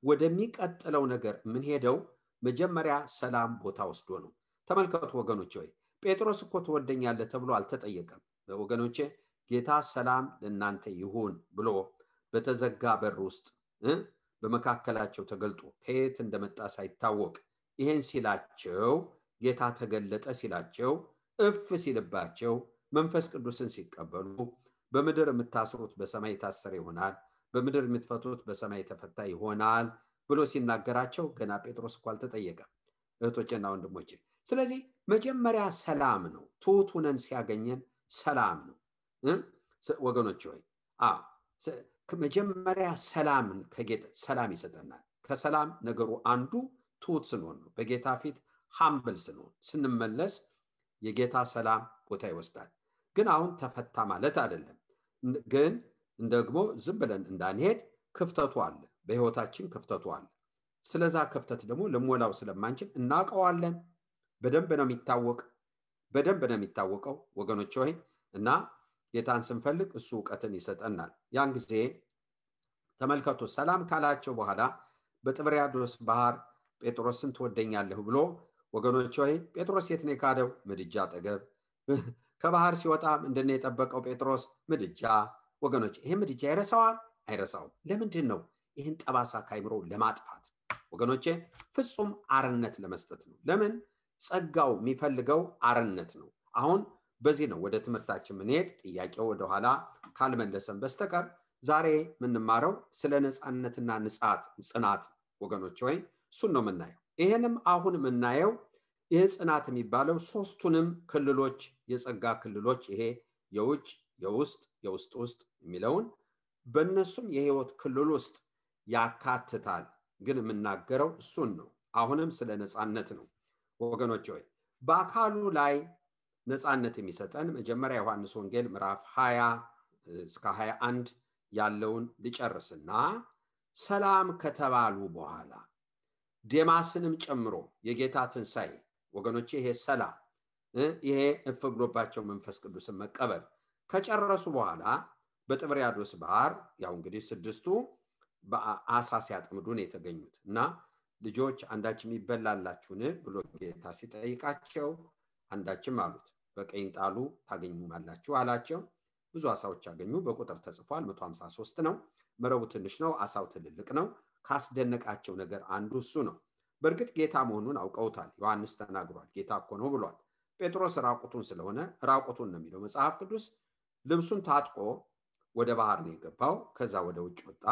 ወደሚቀጥለው ነገር የምንሄደው መጀመሪያ ሰላም ቦታ ወስዶ ነው። ተመልከቱ ወገኖቼ፣ ወይ ጴጥሮስ እኮ ትወደኛለህ ተብሎ አልተጠየቀም። ወገኖቼ ጌታ ሰላም ለእናንተ ይሁን ብሎ በተዘጋ በር ውስጥ በመካከላቸው ተገልጦ ከየት እንደመጣ ሳይታወቅ ይሄን ሲላቸው ጌታ ተገለጠ ሲላቸው እፍ ሲልባቸው መንፈስ ቅዱስን ሲቀበሉ በምድር የምታስሩት በሰማይ የታሰረ ይሆናል፣ በምድር የምትፈቱት በሰማይ የተፈታ ይሆናል ብሎ ሲናገራቸው ገና ጴጥሮስ እኮ አልተጠየቀም። እህቶቼና ወንድሞቼ ስለዚህ መጀመሪያ ሰላም ነው። ትሑት ሆነን ሲያገኘን ሰላም ነው ወገኖቼ። ወይ መጀመሪያ ሰላምን ከጌታ ሰላም ይሰጠናል። ከሰላም ነገሩ አንዱ ትሑት ስንሆን ነው። በጌታ ፊት ሃምብል ስንሆን ስንመለስ የጌታ ሰላም ቦታ ይወስዳል። ግን አሁን ተፈታ ማለት አይደለም። ግን ደግሞ ዝም ብለን እንዳንሄድ ክፍተቱ አለ፣ በህይወታችን ክፍተቱ አለ። ስለዛ ክፍተት ደግሞ ልሞላው ስለማንችል እናውቀዋለን። በደንብ ነው የሚታወቀው ወገኖቼ ሆይ እና ጌታን ስንፈልግ እሱ ዕውቀትን ይሰጠናል። ያን ጊዜ ተመልከቱ ሰላም ካላቸው በኋላ በጥብርያዶስ ባህር ጴጥሮስን ትወደኛለህ ብሎ ወገኖቼ ሆይ ጴጥሮስ የት ነው የካደው? ምድጃ አጠገብ። ከባህር ሲወጣ ምንድነው የጠበቀው ጴጥሮስ? ምድጃ። ወገኖቼ ይሄ ምድጃ ይረሳዋል? አይረሳውም። ለምንድን ነው? ይህን ጠባሳ ካይምሮ ለማጥፋት ወገኖቼ፣ ፍጹም አርነት ለመስጠት ነው። ለምን? ጸጋው የሚፈልገው አርነት ነው። አሁን በዚህ ነው ወደ ትምህርታችን ምንሄድ። ጥያቄው ወደኋላ ካልመለሰን በስተቀር ዛሬ የምንማረው ስለ ነፃነትና ጽናት ወገኖቼ ሆይ እሱን ነው የምናየው። ይሄንም አሁን የምናየው ይህ ጽናት የሚባለው ሶስቱንም ክልሎች የጸጋ ክልሎች ይሄ የውጭ፣ የውስጥ፣ የውስጥ የሚለውን በእነሱም የህይወት ክልል ውስጥ ያካትታል። ግን የምናገረው እሱን ነው። አሁንም ስለ ነፃነት ነው ወገኖቼ ሆይ። በአካሉ ላይ ነፃነት የሚሰጠን መጀመሪያ ዮሐንስ ወንጌል ምዕራፍ 20 እስከ 21 ያለውን ልጨርስና ሰላም ከተባሉ በኋላ ዴማስንም ጨምሮ የጌታ ትንሣኤ ወገኖቼ፣ ይሄ ሰላም ይሄ እፍ ብሎባቸው መንፈስ ቅዱስን መቀበል ከጨረሱ በኋላ በጥብርያዶስ ባህር ያው እንግዲህ ስድስቱ በአሳ ሲያጠምዱ ነው የተገኙት እና ልጆች አንዳችም ይበላላችሁን ብሎ ጌታ ሲጠይቃቸው አንዳችም አሉት። በቀኝ ጣሉ ታገኙማላችሁ አላቸው። ብዙ አሳዎች አገኙ። በቁጥር ተጽፏል። 153 ነው። መረቡ ትንሽ ነው፣ አሳው ትልልቅ ነው። ካስደነቃቸው ነገር አንዱ እሱ ነው። በእርግጥ ጌታ መሆኑን አውቀውታል። ዮሐንስ ተናግሯል። ጌታ እኮ ነው ብሏል። ጴጥሮስ ራቁቱን ስለሆነ ራቁቱን ነው የሚለው መጽሐፍ ቅዱስ። ልብሱን ታጥቆ ወደ ባህር ነው የገባው። ከዛ ወደ ውጭ ወጣ።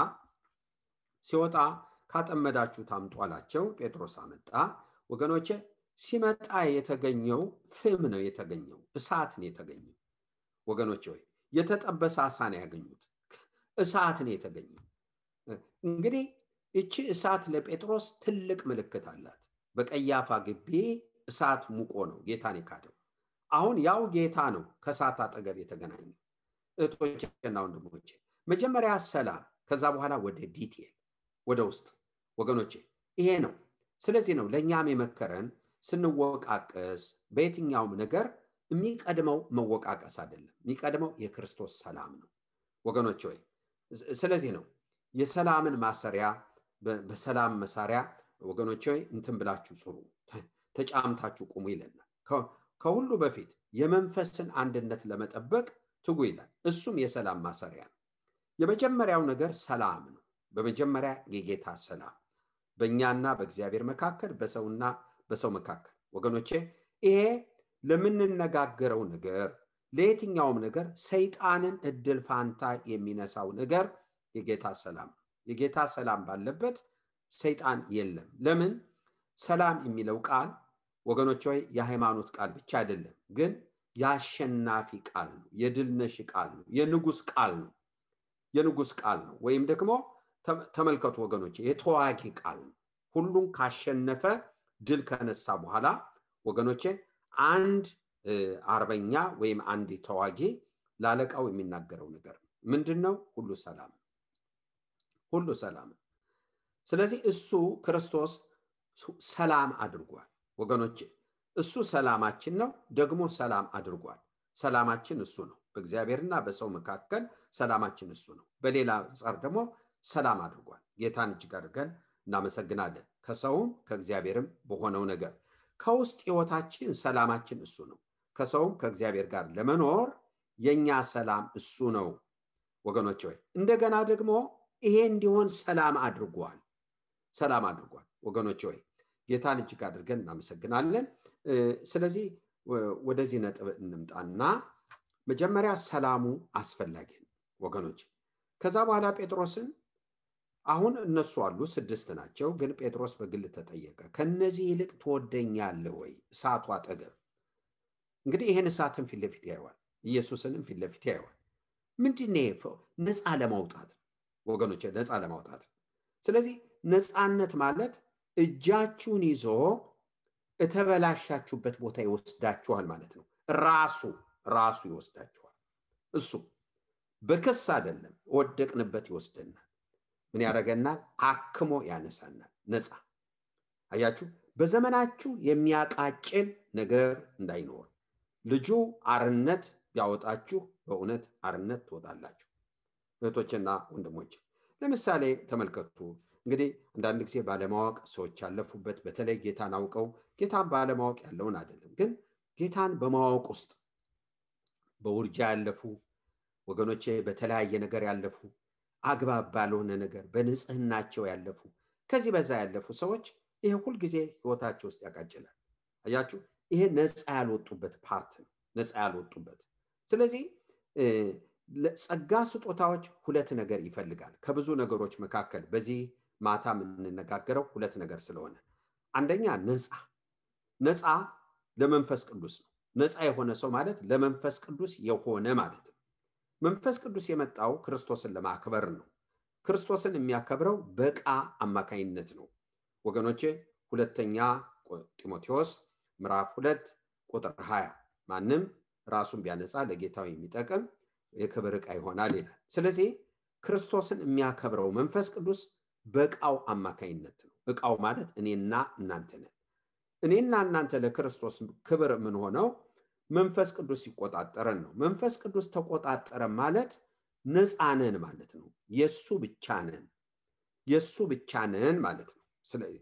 ሲወጣ ካጠመዳችሁ ታምጡ አላቸው። ጴጥሮስ አመጣ። ወገኖቼ ሲመጣ የተገኘው ፍም ነው የተገኘው፣ እሳት ነው የተገኘው። ወገኖቼ ሆይ የተጠበሰ አሳ ነው ያገኙት፣ እሳት ነው የተገኘው። እንግዲህ እቺ እሳት ለጴጥሮስ ትልቅ ምልክት አላት። በቀያፋ ግቢ እሳት ሙቆ ነው ጌታን የካደው። አሁን ያው ጌታ ነው ከእሳት አጠገብ የተገናኘው። እህቶቼና ወንድሞቼ መጀመሪያ ሰላም፣ ከዛ በኋላ ወደ ዲቴል ወደ ውስጥ ወገኖቼ ይሄ ነው። ስለዚህ ነው ለእኛም የመከረን ስንወቃቀስ በየትኛውም ነገር የሚቀድመው መወቃቀስ አይደለም፣ የሚቀድመው የክርስቶስ ሰላም ነው ወገኖቼ ሆይ። ስለዚህ ነው የሰላምን ማሰሪያ በሰላም መሳሪያ ወገኖቼ ሆይ እንትን ብላችሁ ጽሩ፣ ተጫምታችሁ ቁሙ ይለናል። ከሁሉ በፊት የመንፈስን አንድነት ለመጠበቅ ትጉ ይላል። እሱም የሰላም ማሰሪያ ነው። የመጀመሪያው ነገር ሰላም ነው። በመጀመሪያ የጌታ ሰላም በእኛና በእግዚአብሔር መካከል፣ በሰውና በሰው መካከል ወገኖቼ ይሄ ለምንነጋገረው ነገር ለየትኛውም ነገር ሰይጣንን እድል ፋንታ የሚነሳው ነገር የጌታ ሰላም። የጌታ ሰላም ባለበት ሰይጣን የለም። ለምን? ሰላም የሚለው ቃል ወገኖቼ ሆይ የሃይማኖት ቃል ብቻ አይደለም፣ ግን የአሸናፊ ቃል ነው፣ የድልነሽ ቃል ነው፣ የንጉስ ቃል ነው። የንጉስ ቃል ነው ወይም ደግሞ ተመልከቱ ወገኖቼ የተዋጊ ቃል ነው። ሁሉን ካሸነፈ ድል ከነሳ በኋላ ወገኖቼ አንድ አርበኛ ወይም አንድ ተዋጊ ላለቃው የሚናገረው ነገር ምንድነው? ሁሉ ሰላም፣ ሁሉ ሰላም። ስለዚህ እሱ ክርስቶስ ሰላም አድርጓል ወገኖቼ። እሱ ሰላማችን ነው፣ ደግሞ ሰላም አድርጓል። ሰላማችን እሱ ነው። በእግዚአብሔርና በሰው መካከል ሰላማችን እሱ ነው። በሌላ አንጻር ደግሞ ሰላም አድርጓል። ጌታን እጅግ አድርገን እናመሰግናለን። ከሰውም ከእግዚአብሔርም በሆነው ነገር ከውስጥ ሕይወታችን ሰላማችን እሱ ነው። ከሰውም ከእግዚአብሔር ጋር ለመኖር የኛ ሰላም እሱ ነው ወገኖቼ። ወይ እንደገና ደግሞ ይሄ እንዲሆን ሰላም አድርጓል፣ ሰላም አድርጓል ወገኖቼ። ወይ ጌታን እጅግ አድርገን እናመሰግናለን። ስለዚህ ወደዚህ ነጥብ እንምጣና መጀመሪያ ሰላሙ አስፈላጊ ነው ወገኖቼ። ከዛ በኋላ ጴጥሮስን አሁን እነሱ አሉ 6 ናቸው፣ ግን ጴጥሮስ በግል ተጠየቀ። ከነዚህ ይልቅ ትወደኛለህ ወይ? እሳቱ አጠገብ እንግዲህ ይሄን እሳትን ፊት ለፊት ያየዋል፣ ኢየሱስንም ፊት ለፊት ያየዋል። ምንድነው? ነፃ ለማውጣት ወገኖቼ፣ ነፃ ለማውጣት። ስለዚህ ነፃነት ማለት እጃችሁን ይዞ እተበላሻችሁበት ቦታ ይወስዳችኋል ማለት ነው። ራሱ ይወስዳችኋል። እሱ በክስ አይደለም፣ ወደቅንበት ይወስደናል። ምን ያደርገናል? አክሞ ያነሳናል። ነፃ። አያችሁ፣ በዘመናችሁ የሚያቃጭል ነገር እንዳይኖር ልጁ አርነት ቢያወጣችሁ በእውነት አርነት ትወጣላችሁ። እህቶችና ወንድሞች ለምሳሌ ተመልከቱ። እንግዲህ አንዳንድ ጊዜ ባለማወቅ ሰዎች ያለፉበት፣ በተለይ ጌታን አውቀው ጌታን ባለማወቅ ያለውን አይደለም፣ ግን ጌታን በማወቅ ውስጥ በውርጃ ያለፉ ወገኖቼ፣ በተለያየ ነገር ያለፉ፣ አግባብ ባልሆነ ነገር በንጽህናቸው ያለፉ፣ ከዚህ በዛ ያለፉ ሰዎች ይሄ ሁል ጊዜ ህይወታቸው ውስጥ ያቃጭላል። አያችሁ፣ ይሄ ነፃ ያልወጡበት ፓርት ነው፣ ነፃ ያልወጡበት። ስለዚህ ጸጋ ስጦታዎች 2 ነገር ይፈልጋል። ከብዙ ነገሮች መካከል በዚህ ማታ የምንነጋገረው 2 ነገር ስለሆነ፣ አንደኛ ነፃ ለመንፈስ ቅዱስ ነው። ነፃ የሆነ ሰው ማለት ለመንፈስ ቅዱስ የሆነ ማለት ነው። መንፈስ ቅዱስ የመጣው ክርስቶስን ለማክበር ነው። ክርስቶስን የሚያከብረው በቃ አማካይነት ነው ወገኖቼ። ሁለተኛ ጢሞቴዎስ ምዕራፍ 2 ቁጥር 20 ማንም ራሱን ቢያነጻ ለጌታው የሚጠቅም የክብር ዕቃ ይሆናል ይላል። ስለዚህ ክርስቶስን የሚያከብረው መንፈስ ቅዱስ በቃው አማካይነት ነው። ዕቃው ማለት እኔና እናንተ ነን። እኔና እናንተ ለክርስቶስ ክብር ምን ሆነው መንፈስ ቅዱስ ሲቆጣጠረን ነው። መንፈስ ቅዱስ ተቆጣጠረ ማለት ነፃ ነን ማለት ነው። የሱ ብቻ ነን ማለት ነው። ስለዚህ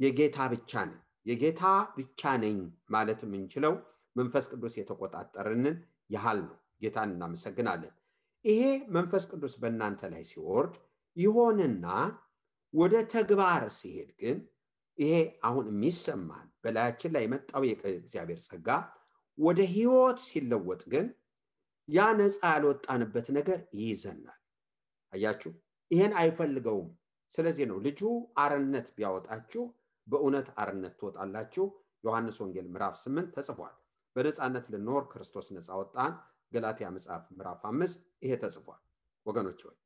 የጌታ ብቻ ነን፣ የጌታ ብቻ ነኝ ማለት የምንችለው መንፈስ ቅዱስ የተቆጣጠረንን ያህል ነው። ጌታን እናመሰግናለን። ይሄ መንፈስ ቅዱስ በእናንተ ላይ ሲወርድ ይሆንና ወደ ተግባር ሲሄድ ግን ይሄ አሁን የሚሰማን በላያችን ላይ የመጣው የእግዚአብሔር ጸጋ ወደ ህይወት ሲለወጥ ግን ያ ነፃ ያልወጣንበት ነገር ይይዘናል። አያችሁ፣ ይሄን አይፈልገውም። ስለዚህ ነው ልጁ አርነት ቢያወጣችሁ በእውነት አርነት ትወጣላችሁ። ዮሐንስ ወንጌል ምዕራፍ 8 ተጽፏል። በነፃነት ልንኖር ክርስቶስ ነፃ ወጣን። ገላትያ መጽሐፍ ምዕራፍ 5 ይሄ ተጽፏል ወገኖች ሆይ።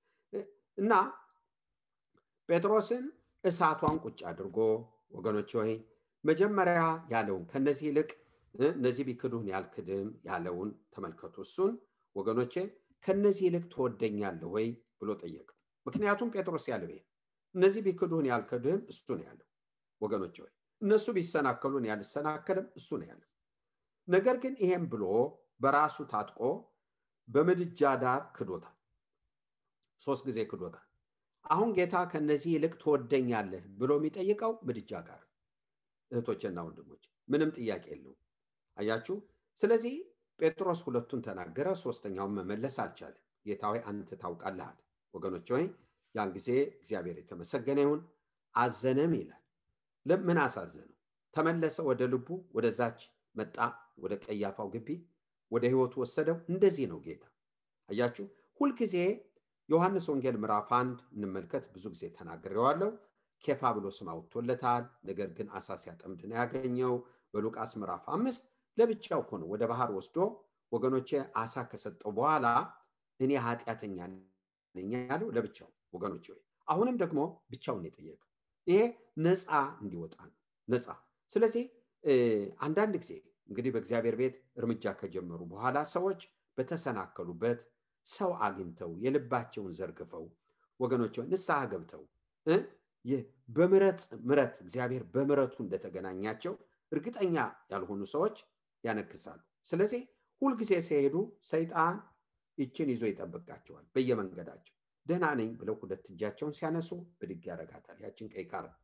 እና ጴጥሮስን እሳቷን ቁጭ አድርጎ ወገኖች ሆይ መጀመሪያ ያለውን ከነዚህ ይልቅ እነዚህ ቢክዱህን ያልክድም ያለውን ተመልከቱ። እሱን ወገኖቼ ከነዚህ ይልቅ ትወደኛለህ ወይ ብሎ ጠየቀው። ምክንያቱም ጴጥሮስ ያለው ይሄ እነዚህ ቢክዱህን ያልክድም እሱ ነው ያለው ወገኖች ሆይ። እነሱ ቢሰናከሉን ያልሰናከልም እሱ ነው ያለው። ነገር ግን ይሄም ብሎ በራሱ ታጥቆ በምድጃ ዳር ክዶታል። 3 ጊዜ ክዶታል። አሁን ጌታ ከነዚህ ይልቅ ትወደኛለህ ብሎ የሚጠይቀው ምድጃ ጋር። እህቶችና ወንድሞች ምንም ጥያቄ የለውም። አያችሁ፣ ስለዚህ ጴጥሮስ 2ቱን ተናገረ፣ 3ኛውን መመለስ አልቻለም። ጌታ ሆይ አንተ ታውቃለህ ወገኖች ሆይ። ያን ጊዜ እግዚአብሔር የተመሰገነ ይሁን። አዘነም ይላል። ለምን አሳዘነው? ተመለሰ ወደ ልቡ፣ ወደዛች መጣ፣ ወደ ቀያፋው ግቢ፣ ወደ ህይወቱ ወሰደው። እንደዚህ ነው ጌታ። አያችሁ፣ ሁልጊዜ ዮሐንስ ወንጌል ምዕራፍ 1 እንመልከት። ብዙ ጊዜ ተናግሬዋለሁ። ኬፋ ብሎ ስም አውጥቶለታል። ነገር ግን አሳ ሲያጠምድ ነው ያገኘው። በሉቃስ ምዕራፍ 5 ለብቻው እኮ ነው ወደ ባህር ወስዶ ወገኖቼ አሳ ከሰጠው በኋላ እኔ ኃጢአተኛ ነኝ ያለው ለብቻው ወገኖቼ። አሁንም ደግሞ ብቻውን የጠየቀው ይሄ ነፃ እንዲወጣ ነው። ነፃ። ስለዚህ አንዳንድ ጊዜ እንግዲህ በእግዚአብሔር ቤት እርምጃ ከጀመሩ በኋላ ሰዎች በተሰናከሉበት ሰው አግኝተው የልባቸውን ዘርግፈው ወገኖች ንስሐ ገብተው በምሕረት እግዚአብሔር በምሕረቱ እንደተገናኛቸው እርግጠኛ ያልሆኑ ሰዎች ያነክሳሉ። ስለዚህ ሁልጊዜ ሲሄዱ ሰይጣን ይችን ይዞ ይጠብቃቸዋል። በየመንገዳቸው ደህና ነኝ ብለው ሁለት እጃቸውን ሲያነሱ ብድግ ያደርጋታል። ያችን ቀይ ካርድ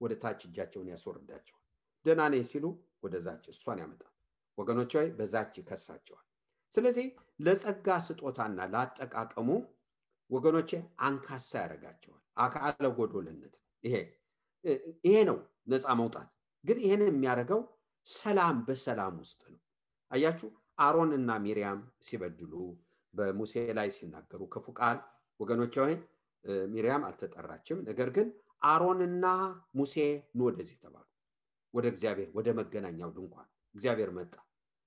ወደ ታች እጃቸውን ያስወርዳቸዋል። ደህና ነኝ ሲሉ ወደዛች እሷን ያመጣል። ወገኖች ሆይ በዛች ይከሳቸዋል። ስለዚህ ለጸጋ ስጦታና ለአጠቃቀሙ ወገኖቼ አንካሳ ያደርጋቸዋል። አካለ ጎዶልነት ይሄ ነው ነፃ መውጣት። ግን ይሄን የሚያደርገው ሰላም በሰላም ውስጥ ነው። አያችሁ አሮንና ሚሪያም ሲበድሉ በሙሴ ላይ ሲናገሩ ክፉ ቃል ወገኖች ሆይ ሚሪያም አልተጠራችም። ነገር ግን አሮንና ሙሴ ኑ ወደዚህ ተባሉ። ወደ እግዚአብሔር ወደ መገናኛው ድንኳን እግዚአብሔር መጣ።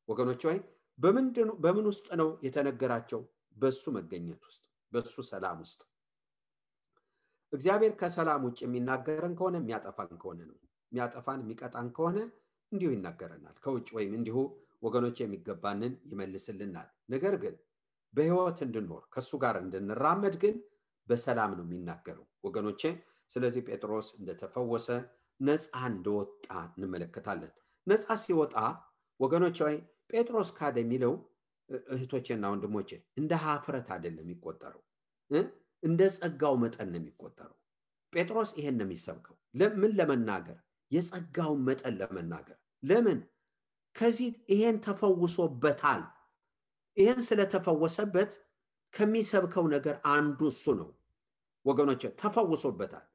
ወገኖች ሆይ በምን ውስጥ ነው የተነገራቸው? በሱ መገኘት ውስጥ፣ በሱ ሰላም ውስጥ። እግዚአብሔር ከሰላም ውጭ የሚናገረን ከሆነ የሚያጠፋን ከሆነ ነው። የሚያጠፋን የሚቀጣን ከሆነ እንዲሁ ይናገረናል። ከውጭ ወይም እንዲሁ ወገኖች የሚገባንን ይመልስልናል። ነገር ግን በህይወት እንድንኖር ከሱ ጋር እንድንራመድ ግን በሰላም ነው የሚናገረው ወገኖቼ። ስለዚህ ጴጥሮስ እንደተፈወሰ ነፃ እንደወጣ እንመለከታለን። ነፃ ሲወጣ ወገኖች ሆይ ጴጥሮስ ካደ የሚለው እህቶቼና ወንድሞቼ እንደ ሀፍረት አይደለም የሚቆጠረው፣ እንደ ጸጋው መጠን ነው የሚቆጠረው። ጴጥሮስ ይሄን ነው የሚሰብከው። ለምን? ለመናገር የጸጋውን መጠን ለመናገር። ለምን? ከዚህ ይሄን ተፈውሶበታል። ይሄን ስለተፈወሰበት ከሚሰብከው ነገር አንዱ እሱ ነው ወገኖቼ። ተፈውሶበታል።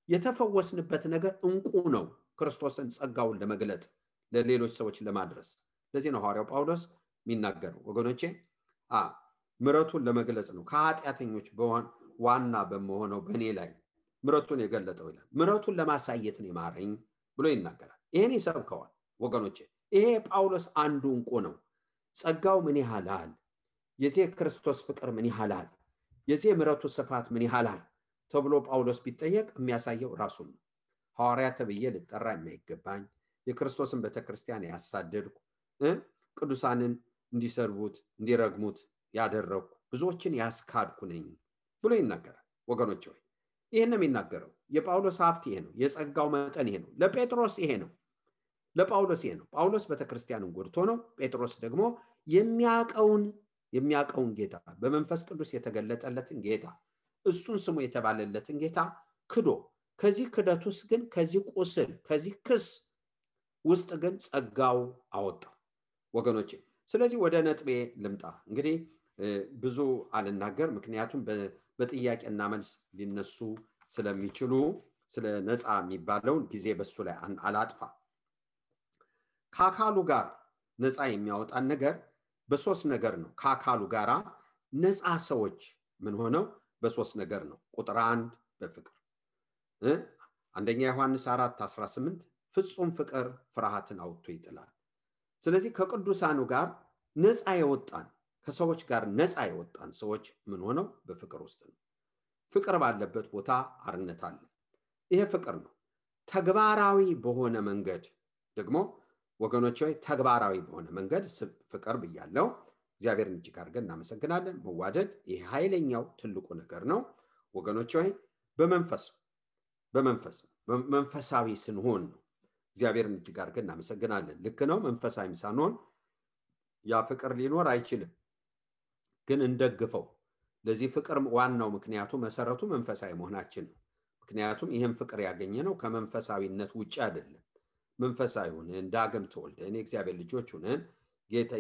የተፈወስንበት ነገር እንቁ ነው፣ ክርስቶስን ጸጋውን ለመግለጥ ለሌሎች ሰዎች ለማድረስ። ለዚህ ነው ሐዋርያው ጳውሎስ የሚናገረው ወገኖቼ ምሕረቱን ለመግለጽ ነው። ከኃጢአተኞች ዋና በመሆነው በእኔ ላይ ምሕረቱን የገለጠው ይላል። ምሕረቱን ለማሳየት ነው የማረኝ ብሎ ይናገራል። ይሄን ይሰብከዋል ወገኖቼ። ይሄ ጳውሎስ አንዱ እንቁ ነው። ጸጋው ምን ያህላል፣ የዚህ ክርስቶስ ፍቅር ምን ያህላል፣ የዚህ ምሕረቱ ስፋት ምን ያህላል ተብሎ ጳውሎስ ቢጠየቅ የሚያሳየው ራሱን ነው። ሐዋርያ ተብዬ ልጠራ የማይገባኝ የክርስቶስን ቤተክርስቲያን ያሳደድኩ ቅዱሳንን እንዲሰርቡት እንዲረግሙት ያደረኩ ብዙዎችን ያስካድኩ ነኝ ብሎ ይናገራል ወገኖች ሆይ። ይሄን ነው የሚናገረው። የጳውሎስ ሀብት ይሄ ነው። የጸጋው መጠን ይሄ ነው። ለጴጥሮስ ይሄ ነው፣ ለጳውሎስ ይሄ ነው። ጳውሎስ ቤተክርስቲያንን ጎድቶ ነው። ጴጥሮስ ደግሞ የሚያቀውን ጌታ በመንፈስ ቅዱስ የተገለጠለትን ጌታ እሱን ስሙ የተባለለትን ጌታ ክዶ ከዚህ ክደት ውስጥ ግን ከዚህ ቁስል ከዚህ ክስ ውስጥ ግን ጸጋው አወጣው ወገኖቼ። ስለዚህ ወደ ነጥቤ ልምጣ። እንግዲህ ብዙ አልናገር፣ ምክንያቱም በጥያቄና መልስ ሊነሱ ስለሚችሉ ስለ ነፃ የሚባለውን ጊዜ በሱ ላይ አላጥፋ። ከአካሉ ጋር ነፃ የሚያወጣን ነገር በሶስት ነገር ነው። ከአካሉ ጋራ ነፃ ሰዎች ምን ሆነው በሶስት ነገር ነው። ቁጥር 1 በፍቅር አንደኛ ዮሐንስ 4:18 ፍጹም ፍቅር ፍርሃትን አውጥቶ ይጥላል። ስለዚህ ከቅዱሳኑ ጋር ነፃ የወጣን ከሰዎች ጋር ነፃ የወጣን ሰዎች ምን ሆነው በፍቅር ውስጥ ነው። ፍቅር ባለበት ቦታ አርነት አለ። ይሄ ፍቅር ነው። ተግባራዊ በሆነ መንገድ ደግሞ ወገኖች ሆይ ተግባራዊ በሆነ መንገድ ፍቅር ብያለው። እግዚአብሔርን እጅግ አድርገን እናመሰግናለን። መዋደድ ይሄ ኃይለኛው ትልቁ ነገር ነው ወገኖች ሆይ። መንፈሳዊ ስንሆን ነው። እግዚአብሔርን እጅግ አድርገን እናመሰግናለን። ልክ ነው። መንፈሳዊ ሳንሆን ያ ፍቅር ሊኖር አይችልም። ግን እንደግፈው። ለዚህ ፍቅር ዋናው ምክንያቱ መሰረቱ መንፈሳዊ መሆናችን ነው። ምክንያቱም ይሄን ፍቅር ያገኘነው ከመንፈሳዊነት ውጪ አይደለም። መንፈሳዊ ሆነን ዳግም ተወልደን የእግዚአብሔር ልጆች ሆነን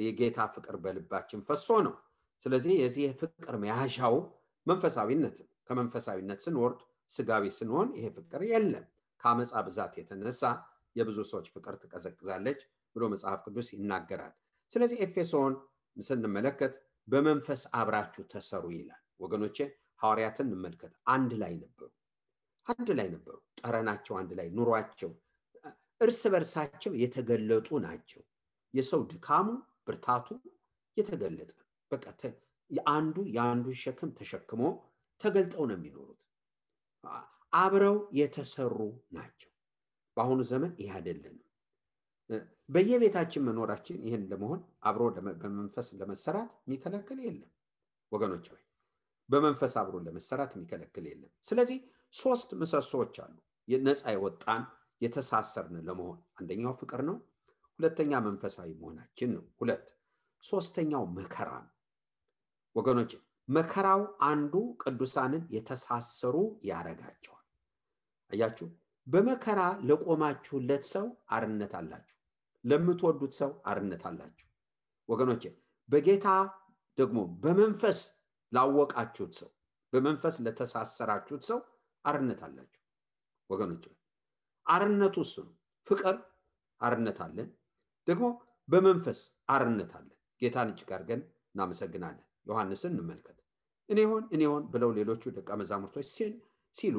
የጌታ ፍቅር በልባችን ፈሶ ነው። ስለዚህ የዚህ ፍቅር መያዣው መንፈሳዊነት ነው። ከመንፈሳዊነት ስንወርድ ስጋዊ ስንሆን ይሄ ፍቅር የለም። ከአመፃ ብዛት የተነሳ የብዙ ሰዎች ፍቅር ትቀዘቅዛለች ብሎ መጽሐፍ ቅዱስ ይናገራል። ስለዚህ ኤፌሶን ስንመለከት በመንፈስ አብራችሁ ተሰሩ ይላል ወገኖቼ። ሐዋርያትን እንመልከት። አንድ ላይ ነበሩ። ጠረናቸው አንድ ላይ፣ ኑሯቸው እርስ በርሳቸው የተገለጡ ናቸው። የሰው ድካሙ ብርታቱ የተገለጠ በቃ የአንዱ ሸክም ተሸክሞ ተገልጠው ነው የሚኖሩት። አብረው የተሰሩ ናቸው። በአሁኑ ዘመን ይህ አይደለም። በየቤታችን መኖራችን ይህን ለመሆን አብሮ በመንፈስ ለመሰራት የሚከለክል የለም ወገኖች ሆይ በመንፈስ አብሮ ለመሰራት የሚከለክል የለም ስለዚህ ሶስት ምሰሶዎች አሉ ነፃ የወጣን የተሳሰርን ለመሆን አንደኛው ፍቅር ነው ሁለተኛ መንፈሳዊ መሆናችን ነው ሁለት ሶስተኛው መከራ ነው ወገኖች መከራው አንዱ ቅዱሳንን የተሳሰሩ ያረጋቸዋል አያችሁ በመከራ ለቆማችሁለት ሰው አርነት አላችሁ ለምትወዱት ሰው አርነት አላችሁ ወገኖች በጌታ ደግሞ በመንፈስ ላወቃችሁት ሰው በመንፈስ ለተሳሰራችሁት ሰው አርነት አላችሁ ወገኖች አርነቱ እሱ ነው ፍቅር አርነት አለን ደግሞ በመንፈስ አርነት አለን ጌታን እጅግ አድርገን እናመሰግናለን ዮሐንስን እንመልከት እኔ ሆን ብለው ሌሎቹ ደቀ መዛሙርቶች ሲሉ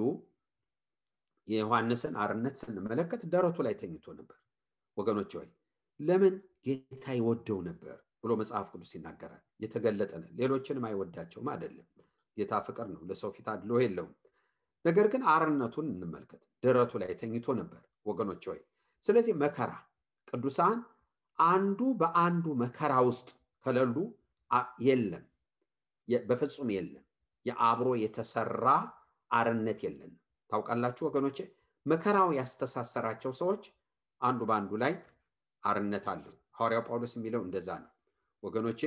የዮሐንስን አርነት ስንመለከት ደረቱ ላይ ተኝቶ ነበር ወገኖች ሆይ ለምን ጌታ ይወደው ነበር ብሎ መጽሐፍ ቅዱስ ይናገራል የተገለጠ ነው ሌሎችንም አይወዳቸውም አይደለም ጌታ ፍቅር ነው ለሰው ፊት አድሎ የለውም ነገር ግን አርነቱን እንመልከት ደረቱ ላይ ተኝቶ ነበር ወገኖች ሆይ ስለዚህ መከራ ቅዱሳን አንዱ በአንዱ መከራ ውስጥ ከሌሉ የለም በፍጹም የለም የአብሮ የተሰራ አርነት የለም ታውቃላችሁ ወገኖቼ መከራው ያስተሳሰራቸው ሰዎች አንዱ በአንዱ ላይ አርነት አለው ሐዋርያው ጳውሎስ የሚለው እንደዛ ነው ወገኖቼ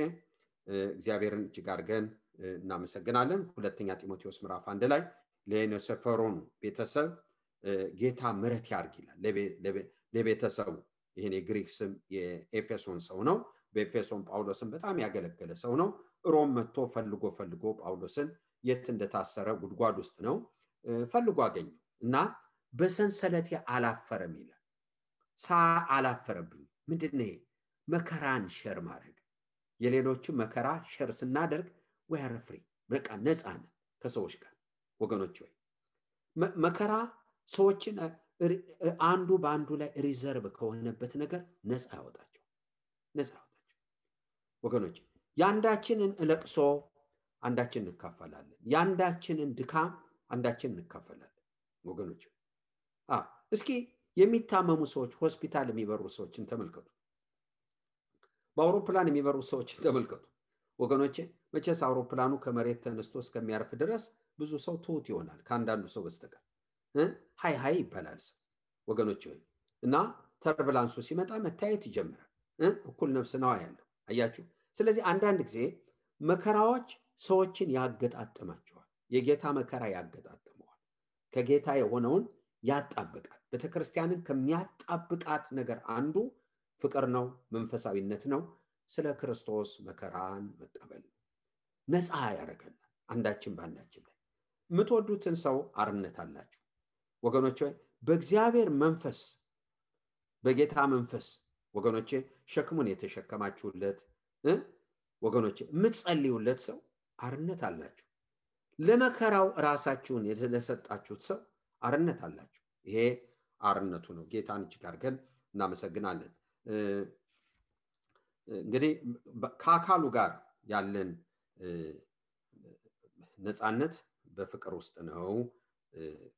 እግዚአብሔርን እጅግ አድርገን እናመሰግናለን ሁለተኛ ጢሞቴዎስ ምዕራፍ 1 ላይ ለኔሰፈሮን ቤተሰብ ጌታ ምሕረት ያርግ ይላል ለቤተሰቡ ይሄን የግሪክ ስም የኤፌሶን ሰው ነው በኤፌሶን ጳውሎስን በጣም ያገለገለ ሰው ነው ሮም መጥቶ ፈልጎ ጳውሎስን የት እንደታሰረ ጉድጓድ ውስጥ ነው ፈልጎ አገኘው እና በሰንሰለቴ አላፈረም ይላል አላፈረብኝ ምንድነው መከራን ሸር ማድረግ የሌሎቹ መከራ ሸር ስናደርግ we are free በቃ ነፃ ነን ከሰዎች ጋር ወገኖች ሆይ መከራ ሰዎችን አንዱ በአንዱ ላይ ሪዘርቭ ከሆነበት ነገር ነፃ ያወጣቸው ወገኖች ያንዳችንን ለቅሶ አንዳችን እንካፈላለን ያንዳችንን ድካም አንዳችን እንካፈላለን ወገኖች እስኪ የሚታመሙ ሰዎች ሆስፒታል የሚበሩ ሰዎችን ተመልከቱ በአውሮፕላን የሚበሩ ሰዎችን ተመልከቱ ወገኖች መቼስ አውሮፕላኑ ከመሬት ተነስቶ እስከሚያርፍ ድረስ ብዙ ሰው ትሁት ይሆናል ከአንዳንዱ ሰው በስተቀር ሃይ ይባላል ወገኖች ሆይ እና ተርቡላንሱ ሲመጣ መታየት ይጀምራል እኩል ነፍስ ነው ያለው አያችሁ ስለዚህ አንዳንድ ጊዜ መከራዎች ሰዎችን ያገጣጥማቸዋል የጌታ መከራ ያገጣጥመዋል ከጌታ የሆነውን ያጣብቃል ቤተክርስቲያንን ከሚያጣብቃት ነገር አንዱ ፍቅር ነው መንፈሳዊነት ነው ስለ ክርስቶስ መከራን መቀበል ነፃ ያረጋል አንዳችን ባንዳችን ላይ ምትወዱትን ሰው አርነት አላችሁ ወገኖቼ በእግዚአብሔር መንፈስ በጌታ መንፈስ ወገኖቼ ሸክሙን የተሸከማችሁለት ወገኖቼ ምትጸልዩለት ሰው አርነት አላችሁ ለመከራው ራሳችሁን የተለሰጣችሁት ሰው አርነት አላችሁ ይሄ አርነቱ ነው ጌታን እጅግ አድርገን እናመሰግናለን እንግዲህ ከአካሉ ጋር ያለን ነፃነት በፍቅር ውስጥ ነው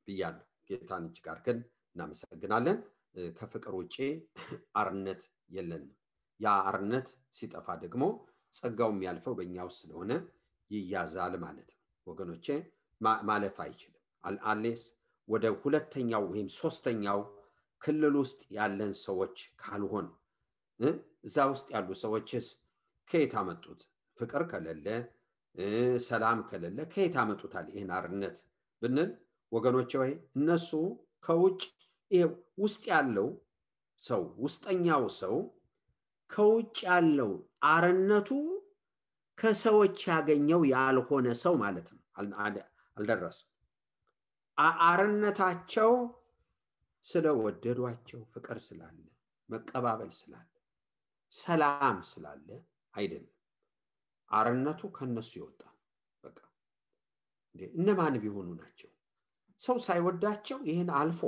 ብያለሁ ጌታን እጅግ አድርገን እናመሰግናለን ከፍቅር ውጪ አርነት የለንም ያ አርነት ሲጠፋ ደግሞ ጸጋው የሚያልፈው በእኛ ውስጥ ስለሆነ ይያዛል ማለት ነው ወገኖቼ ማለፍ አይችልም አሌስ ወደ ሁለተኛው ወይም ሶስተኛው ክልል ውስጥ ያለን ሰዎች ካልሆን እዛ ውስጥ ያሉ ሰዎችስ ከየት አመጡት ፍቅር ከሌለ ሰላም ከሌለ ከየት አመጡታል ይሄን አርነት ብንል ወገኖቼ ወይ እነሱ ከውጭ ይሄ ውስጥ ያለው ሰው ውስጠኛው ሰው ከውጭ ያለው አርነቱ ከሰዎች ያገኘው ያልሆነ ሰው ማለት ነው አልደረሰም አርነታቸው ስለወደዷቸው ፍቅር ስላለ መቀባበል ስላለ ሰላም ስላለ አይደለም አርነቱ ከነሱ ይወጣ በቃ እነማን ቢሆኑ ናቸው ሰው ሳይወዳቸው ይሄን አልፎ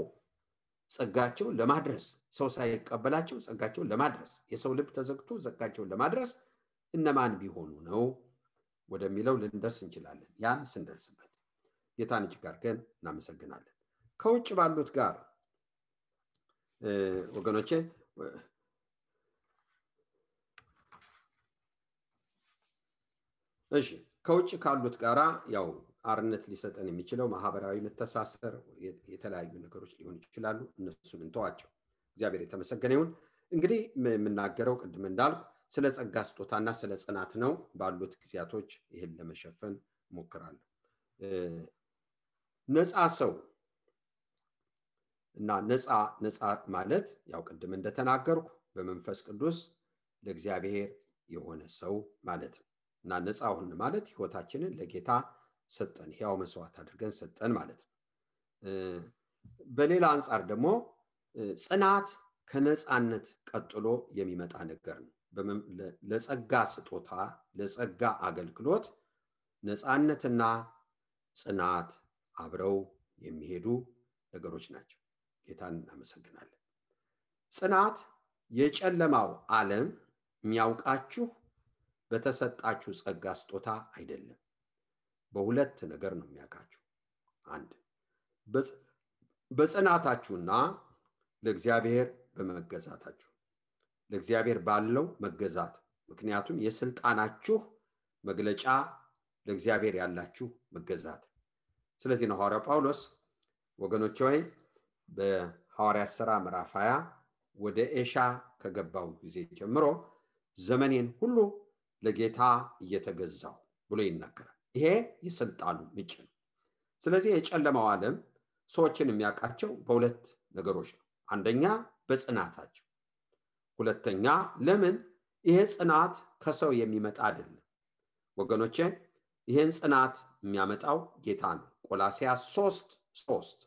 ጸጋቸው ለማድረስ ሰው ሳይቀበላቸው ጸጋቸው ለማድረስ የሰው ልብ ተዘግቶ ጸጋቸው ለማድረስ እነማን ቢሆኑ ነው ወደሚለው ልንደርስ እንችላለን ያን ስንደርስበት ጌታን እጅግ አድርገን እናመሰግናለን ከውጭ ባሉት ጋር ወገኖቼ እሺ ከውጭ ካሉት ጋራ ያው አርነት ሊሰጠን የሚችለው ማህበራዊ መተሳሰር የተለያዩ ነገሮች ሊሆኑ ይችላሉ። እነሱን እንተዋቸው። እግዚአብሔር የተመሰገነ ይሁን። እንግዲህ የምናገረው ቅድም እንዳልኩ ስለ ጸጋ ስጦታና ስለ ጽናት ነው። ባሉት ጊዜያቶች ይህን ለመሸፈን ሞክራለሁ። ነፃ ሰው እና ነፃ ማለት ያው ቅድም እንደተናገርኩ በመንፈስ ቅዱስ ለእግዚአብሔር የሆነ ሰው ማለት ነው። እና ነፃ ሆን ማለት ህይወታችንን ለጌታ ሰጠን፣ ሕያው መስዋዕት አድርገን ሰጠን ማለት ነው። በሌላ አንፃር ደግሞ ጽናት ከነፃነት ቀጥሎ የሚመጣ ነገር ነው። ለጸጋ ስጦታ ለጸጋ አገልግሎት ነፃነትና ጽናት አብረው የሚሄዱ ነገሮች ናቸው። ጌታን እናመሰግናለን። ጽናት የጨለማው ዓለም የሚያውቃችሁ በተሰጣችሁ ጸጋ ስጦታ አይደለም። በሁለት ነገር ነው የሚያውቃችሁ። አንድ በጽናታችሁና ለእግዚአብሔር በመገዛታችሁ፣ ለእግዚአብሔር ባለው መገዛት። ምክንያቱም የስልጣናችሁ መግለጫ ለእግዚአብሔር ያላችሁ መገዛት። ስለዚህ ነው ሐዋርያው ጳውሎስ ወገኖች ሆይ በሐዋርያት ሥራ ምዕራፍ 20 ወደ ኤሻ ከገባው ጊዜ ጀምሮ ዘመኔን ሁሉ ለጌታ እየተገዛው ብሎ ይናገራል። ይሄ የስልጣኑ ምንጭ ነው። ስለዚህ የጨለማው ዓለም ሰዎችን የሚያውቃቸው በሁለት ነገሮች ነው። አንደኛ በጽናታቸው፣ ሁለተኛ ለምን ይሄ ጽናት ከሰው የሚመጣ አይደለም ወገኖቼ። ይሄን ጽናት የሚያመጣው ጌታ ነው። ቆላስይስ 3:3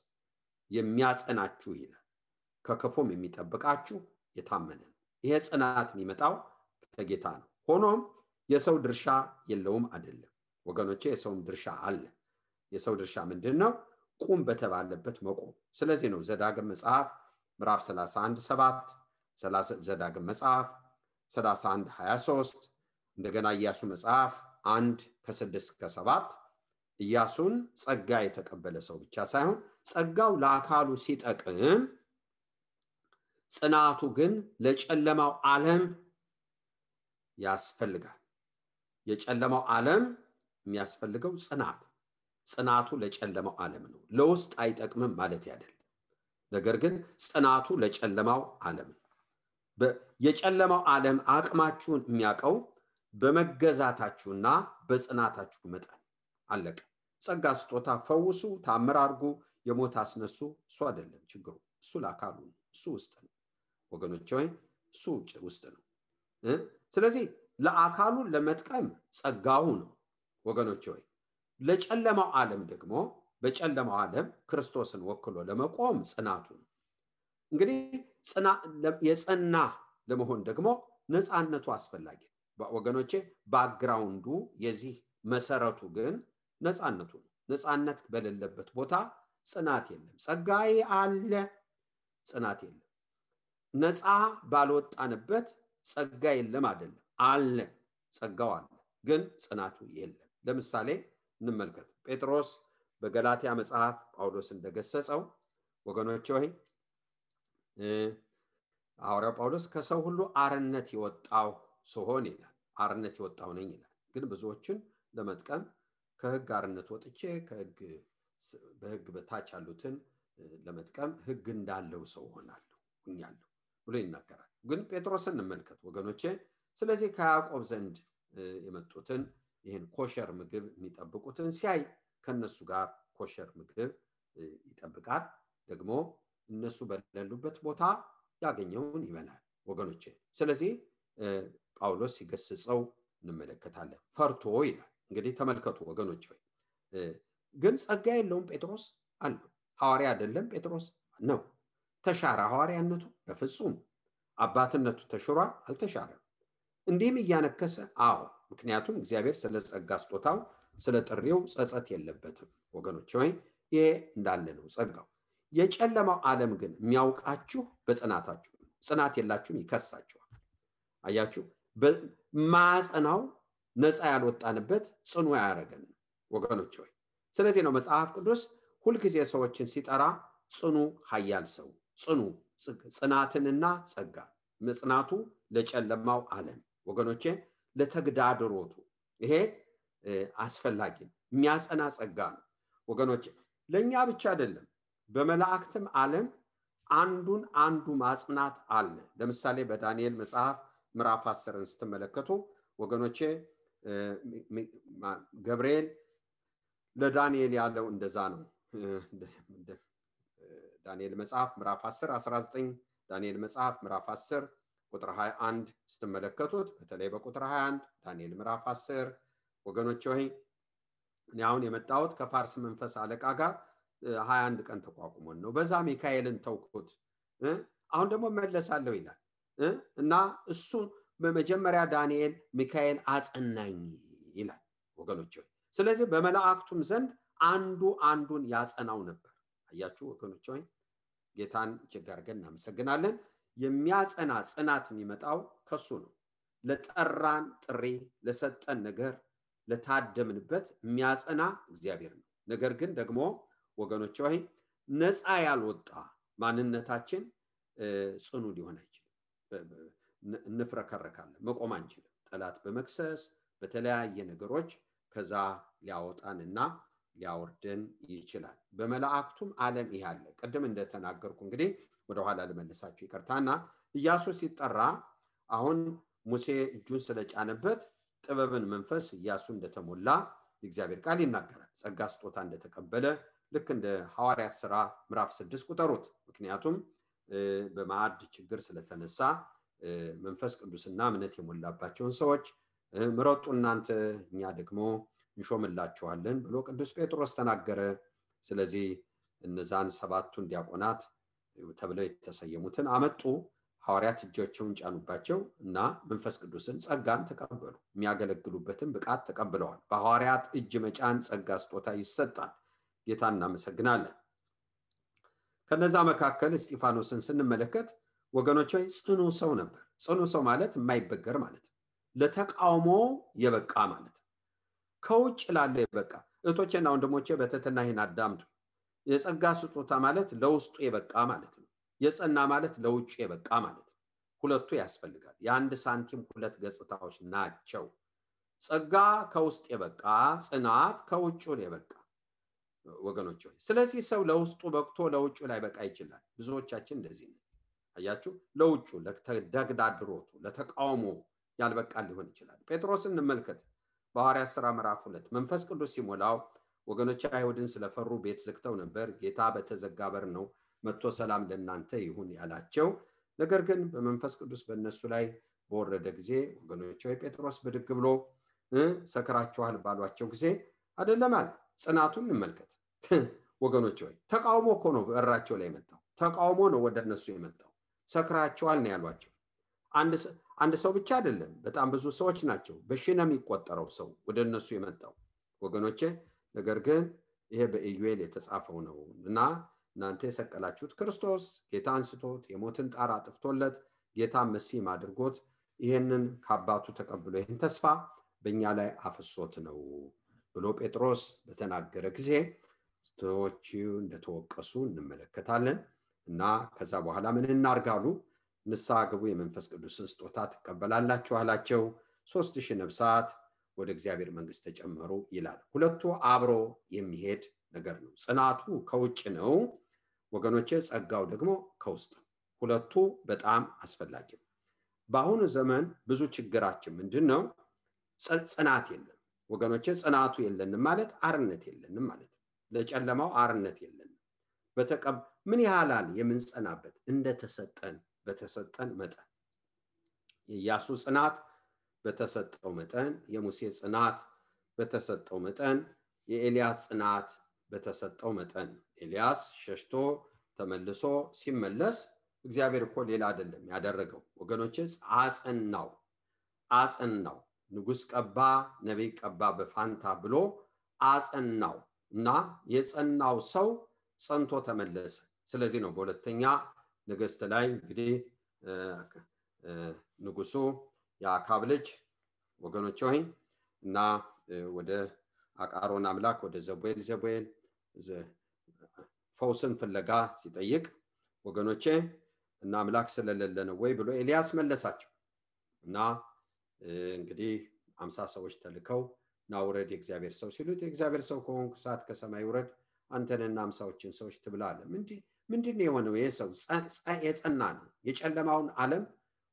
የሚያጸናችሁ ይላል፣ ከክፉም የሚጠብቃችሁ የታመነ ነው። ይሄ ጽናት የሚመጣው ከጌታ ነው። ሆኖም የሰው ድርሻ የለውም አይደለም ወገኖቼ። የሰውም ድርሻ አለ። የሰው ድርሻ ምንድነው? ቁም በተባለበት መቆም። ስለዚህ ነው ዘዳግም መጽሐፍ ምዕራፍ 31:7፣ ዘዳግም መጽሐፍ 31:23፣ እንደገና ኢያሱ መጽሐፍ 1:6-7 ኢያሱን ጸጋ የተቀበለ ሰው ብቻ ሳይሆን ጸጋው ለአካሉ ሲጠቅም ጽናቱ ግን ለጨለማው ዓለም ያስፈልጋል። የጨለማው ዓለም የሚያስፈልገው ጽናቱ ለጨለማው ዓለም ነው። ለውስጥ አይጠቅምም ማለት አይደለም። ነገር ግን ጽናቱ ለጨለማው ዓለም ነው። የጨለማው ዓለም አቅማችሁን የሚያውቀው በመገዛታችሁና በጽናታችሁ መጠን አለቀ። ጸጋ ስጦታ ፈውሱ፣ ታምር አድርጉ፣ የሞት አስነሱ እሱ አይደለም ችግሩ። እሱ ለአካሉ ነው። እሱ ውስጥ ነው ወገኖች ሆይ፣ እሱ ውስጥ ነው። ስለዚህ ለአካሉ ለመጥቀም ጸጋው ነው ወገኖች ሆይ። ለጨለማው ዓለም ደግሞ በጨለማው ዓለም ክርስቶስን ወክሎ ለመቆም ጽናቱ ነው። እንግዲህ የጸና ለመሆን ደግሞ ነፃነቱ አስፈላጊ ነው ወገኖቼ። ባክግራውንዱ የዚህ መሰረቱ ግን ነፃነቱ ነው። ነፃነት በሌለበት ቦታ ጽናት የለም። ጸጋዬ አለ፣ ጽናት የለም። ነፃ ባልወጣንበት ጸጋ የለም አይደለም፣ አለ፣ ጸጋው አለ፣ ግን ጽናቱ የለም። ለምሳሌ እንመልከት። ጴጥሮስ በገላትያ መጽሐፍ ጳውሎስ እንደገሰጸው ወገኖች ሆይ ሐዋርያው ጳውሎስ ከሰው ሁሉ አርነት የወጣው ስሆን ይላል፣ አርነት የወጣው ነኝ ይላል። ግን ብዙዎችን ለመጥቀም ከሕግ አርነት ወጥቼ በሕግ በታች ያሉትን ለመጥቀም ሕግ እንዳለው ሰው ሆኛለሁ ብሎ ይናገራል። ግን ጴጥሮስን እንመልከት ወገኖቼ። ስለዚህ ከያዕቆብ ዘንድ የመጡትን ይህን ኮሸር ምግብ የሚጠብቁትን ሲያይ ከነሱ ጋር ኮሸር ምግብ ይጠብቃል። ደግሞ እነሱ በሌሉበት ቦታ ያገኘውን ይበላል ወገኖቼ። ስለዚህ ጳውሎስ ሲገስጸው እንመለከታለን። ፈርቶ ይላል። እንግዲህ ተመልከቱ ወገኖች ሆይ፣ ግን ጸጋ የለውም ጴጥሮስ አለው። ሐዋርያ አይደለም ጴጥሮስ ነው። ተሻረ ሐዋርያነቱ? በፍጹም። አባትነቱ ተሽሯል? አልተሻረም። እንዲህም እያነከሰ አዎ፣ ምክንያቱም እግዚአብሔር ስለ ጸጋ ስጦታው ስለ ጥሪው ጸጸት የለበትም ወገኖች ሆይ። ይሄ እንዳለ ነው ጸጋው። የጨለማው ዓለም ግን የሚያውቃችሁ በጽናታችሁ ነው። ጽናት የላችሁም ይከሳችኋል። አያችሁ፣ ማጽናው ነፃ ያልወጣንበት ጽኑ ያረገን ወገኖች ሆይ። ስለዚህ ነው መጽሐፍ ቅዱስ ሁልጊዜ ሰዎችን ሲጠራ ጽኑ ኃያል ሰው፣ ጽናትንና ጸጋ። መጽናቱ ለጨለማው ዓለም ወገኖቼ፣ ለተግዳድሮቱ። ይሄ አስፈላጊ ነው። የሚያጸና ጸጋ ነው ወገኖች። ለኛ ብቻ አይደለም፣ በመላእክትም ዓለም አንዱ ማጽናት አለ። ለምሳሌ በዳንኤል መጽሐፍ ምዕራፍ 10ን ስትመለከቱ ወገኖቼ ገብርኤል ለዳንኤል ያለው እንደዛ ነው። ዳንኤል መጽሐፍ ምዕራፍ 10 19 ዳንኤል መጽሐፍ ምዕራፍ 10 ቁጥር 21 ስትመለከቱት በተለይ በቁጥር 21 ዳንኤል ምዕራፍ 10 ወገኖች ሆይ እኔ አሁን የመጣሁት ከፋርስ መንፈስ አለቃ ጋር 21 ቀን ተቋቁሞን ነው። በዛ ሚካኤልን ተውኩት፣ አሁን ደግሞ መለሳለሁ ይላል እና እሱ በመጀመሪያ ዳንኤል ሚካኤል አጸናኝ ይላል ወገኖች ሆይ። ስለዚህ በመላእክቱም ዘንድ አንዱን ያጸናው ነበር። አያችሁ ወገኖች ሆይ ጌታን እጅግ አድርገን እናመሰግናለን። የሚያጸና ጽናት የሚመጣው ከሱ ነው። ለጠራን ጥሪ፣ ለሰጠን ነገር፣ ለታደምንበት የሚያጸና እግዚአብሔር ነው። ነገር ግን ደግሞ ወገኖች ሆይ ነፃ ያልወጣ ማንነታችን ጽኑ ሊሆን አይችልም። እንፍረከረካለን፣ መቆም አንችልም። ጠላት በመክሰስ በተለያየ ነገሮች ከዛ ሊያወጣንና ሊያወርደን ይችላል። በመላእክቱም ዓለም ይሄ አለ። ቀደም እንደተናገርኩ እንግዲህ ወደ ኋላ ልመልሳችሁ ይቅርታና ኢያሱ ሲጠራ አሁን ሙሴ እጁን ስለጫነበት ጥበብን መንፈስ ኢያሱ እንደተሞላ የእግዚአብሔር ቃል ይናገራል። ጸጋ ስጦታ እንደተቀበለ ልክ እንደ ሐዋርያት ሥራ ምዕራፍ 6 ቁጠሩት። ምክንያቱም በማዕድ ችግር ስለተነሳ መንፈስ ቅዱስና እምነት የሞላባቸውን ሰዎች ምረጡ እናንተ እኛ ደግሞ እንሾምላችኋለን ብሎ ቅዱስ ጴጥሮስ ተናገረ። ስለዚህ እነዛን 7ቱን ዲያቆናት ተብለው የተሰየሙትን አመጡ። ሐዋርያት እጆቻቸውን ጫኑባቸው እና መንፈስ ቅዱስን ጸጋን ተቀበሉ። የሚያገለግሉበትን ብቃት ተቀብለዋል። በሐዋርያት እጅ መጫን ጸጋ ስጦታ ይሰጣል። ጌታን እናመሰግናለን። ከነዛ መካከል እስጢፋኖስን ስንመለከት ወገኖች ሆይ ጽኑ ሰው ነበር። ጽኑ ሰው ማለት የማይበገር ማለት ነው። ለተቃውሞ የበቃ ማለት ነው። ከውጭ ላለ የበቃ እህቶቼና ወንድሞቼ በትህትና ይህን አዳምጡ። የጸጋ ስጦታ ማለት ለውስጡ የበቃ ማለት ነው። የጸና ማለት ለውጭ የበቃ ማለት ነው። ሁለቱ ያስፈልጋል። የአንድ ሳንቲም ሁለት ገጽታዎች ናቸው። ጸጋ ከውስጥ የበቃ፣ ጽናት ከውጭ የበቃ ወገኖች ሆይ። ስለዚህ ሰው ለውስጡ በቅቶ ለውጭ ላይ በቃ ይችላል። ብዙዎቻችን እንደዚህ ነው። አያችሁ፣ ለውጭ ለተግዳድሮቱ ለተቃውሞ ያልበቃ ሊሆን ይችላል። ጴጥሮስን እንመልከት። በሐዋርያት ሥራ ምዕራፍ 2 መንፈስ ቅዱስ ሲሞላው ወገኖች አይሁድን ስለፈሩ ቤት ዘግተው ነበር። ጌታ በተዘጋ በር ነው መጥቶ ሰላም ለእናንተ ይሁን ያላቸው። ነገር ግን በመንፈስ ቅዱስ በእነሱ ላይ በወረደ ጊዜ ወገኖች ሆይ ጴጥሮስ ብድግ ብሎ ሰክራችኋል ባሏቸው ጊዜ አይደለም አለ። ጽናቱን እንመልከት ወገኖች ሆይ። ተቃውሞ እኮ ነው በራቸው ላይ የመጣው። ተቃውሞ ነው ወደ እነሱ የመጣው። ሰክራችኋል ነው ያሏቸው። አንድ ሰው ብቻ አይደለም፣ በጣም ብዙ ሰዎች ናቸው። በሺህ ነው የሚቆጠረው ሰው ወደ እነሱ የመጣው ወገኖቼ። ነገር ግን ይሄ በኢዩኤል የተጻፈው ነው እና እናንተ የሰቀላችሁት ክርስቶስ ጌታ አንስቶት የሞትን ጣር አጥፍቶለት ጌታ መሲም አድርጎት ይሄንን ከአባቱ ተቀብሎ ይሄን ተስፋ በእኛ ላይ አፍሶት ነው ብሎ ጴጥሮስ በተናገረ ጊዜ ሰዎች እንደተወቀሱ እንመለከታለን። እና ከዛ በኋላ ምን እናርጋሉ? ንስሐ ግቡ፣ የመንፈስ ቅዱስን ስጦታ ትቀበላላችሁ አላቸው። 3000 ነፍሳት ወደ እግዚአብሔር መንግስት ተጨመሩ ይላል። ሁለቱ አብሮ የሚሄድ ነገር ነው። ጽናቱ ከውጭ ነው ወገኖቼ፣ ጸጋው ደግሞ ከውስጥ። ሁለቱ በጣም አስፈላጊ ነው። በአሁኑ ዘመን ብዙ ችግራችን ምንድነው? ጽናት የለም ወገኖቼ። ጽናቱ የለንም ማለት አርነት የለንም ማለት ነው። ለጨለማው አርነት የለንም። ምን ያህላል የምንጸናበት እንደተሰጠን በተሰጠን መጠን። የኢያሱ ጽናት በተሰጠው መጠን፣ የሙሴ ጽናት በተሰጠው መጠን፣ የኤልያስ ጽናት በተሰጠው መጠን። ኤልያስ ሸሽቶ ተመልሶ ሲመለስ እግዚአብሔር እኮ ሌላ አይደለም ያደረገው ወገኖቼ፣ አጸናው። ንጉስ ቀባ፣ ነቢይ ቀባ በፋንታ ብሎ አጸናው እና የጸናው ሰው ጸንቶ ተመለሰ። ስለዚህ ነው በሁለተኛ ነገሥት ላይ እንግዲህ ንጉሱ የአካብ ልጅ ወገኖች ሆይ እና ወደ አቃሮን አምላክ ወደ ዘቡኤል ፈውስን ፍለጋ ሲጠይቅ ወገኖቼ እና አምላክ ስለሌለ ነው ወይ ብሎ ኤልያስ መለሳቸው። እና እንግዲህ 50 ሰዎች ተልከው ናውረድ የእግዚአብሔር ሰው ሲሉት የእግዚአብሔር ሰው ከሆንክ እሳት ከሰማይ ውረድ አንተንና አምሳዎችን ሰዎች ትብላለ። ምንድን የሆነው? ይህ ሰው የጸና ነው። የጨለማውን ዓለም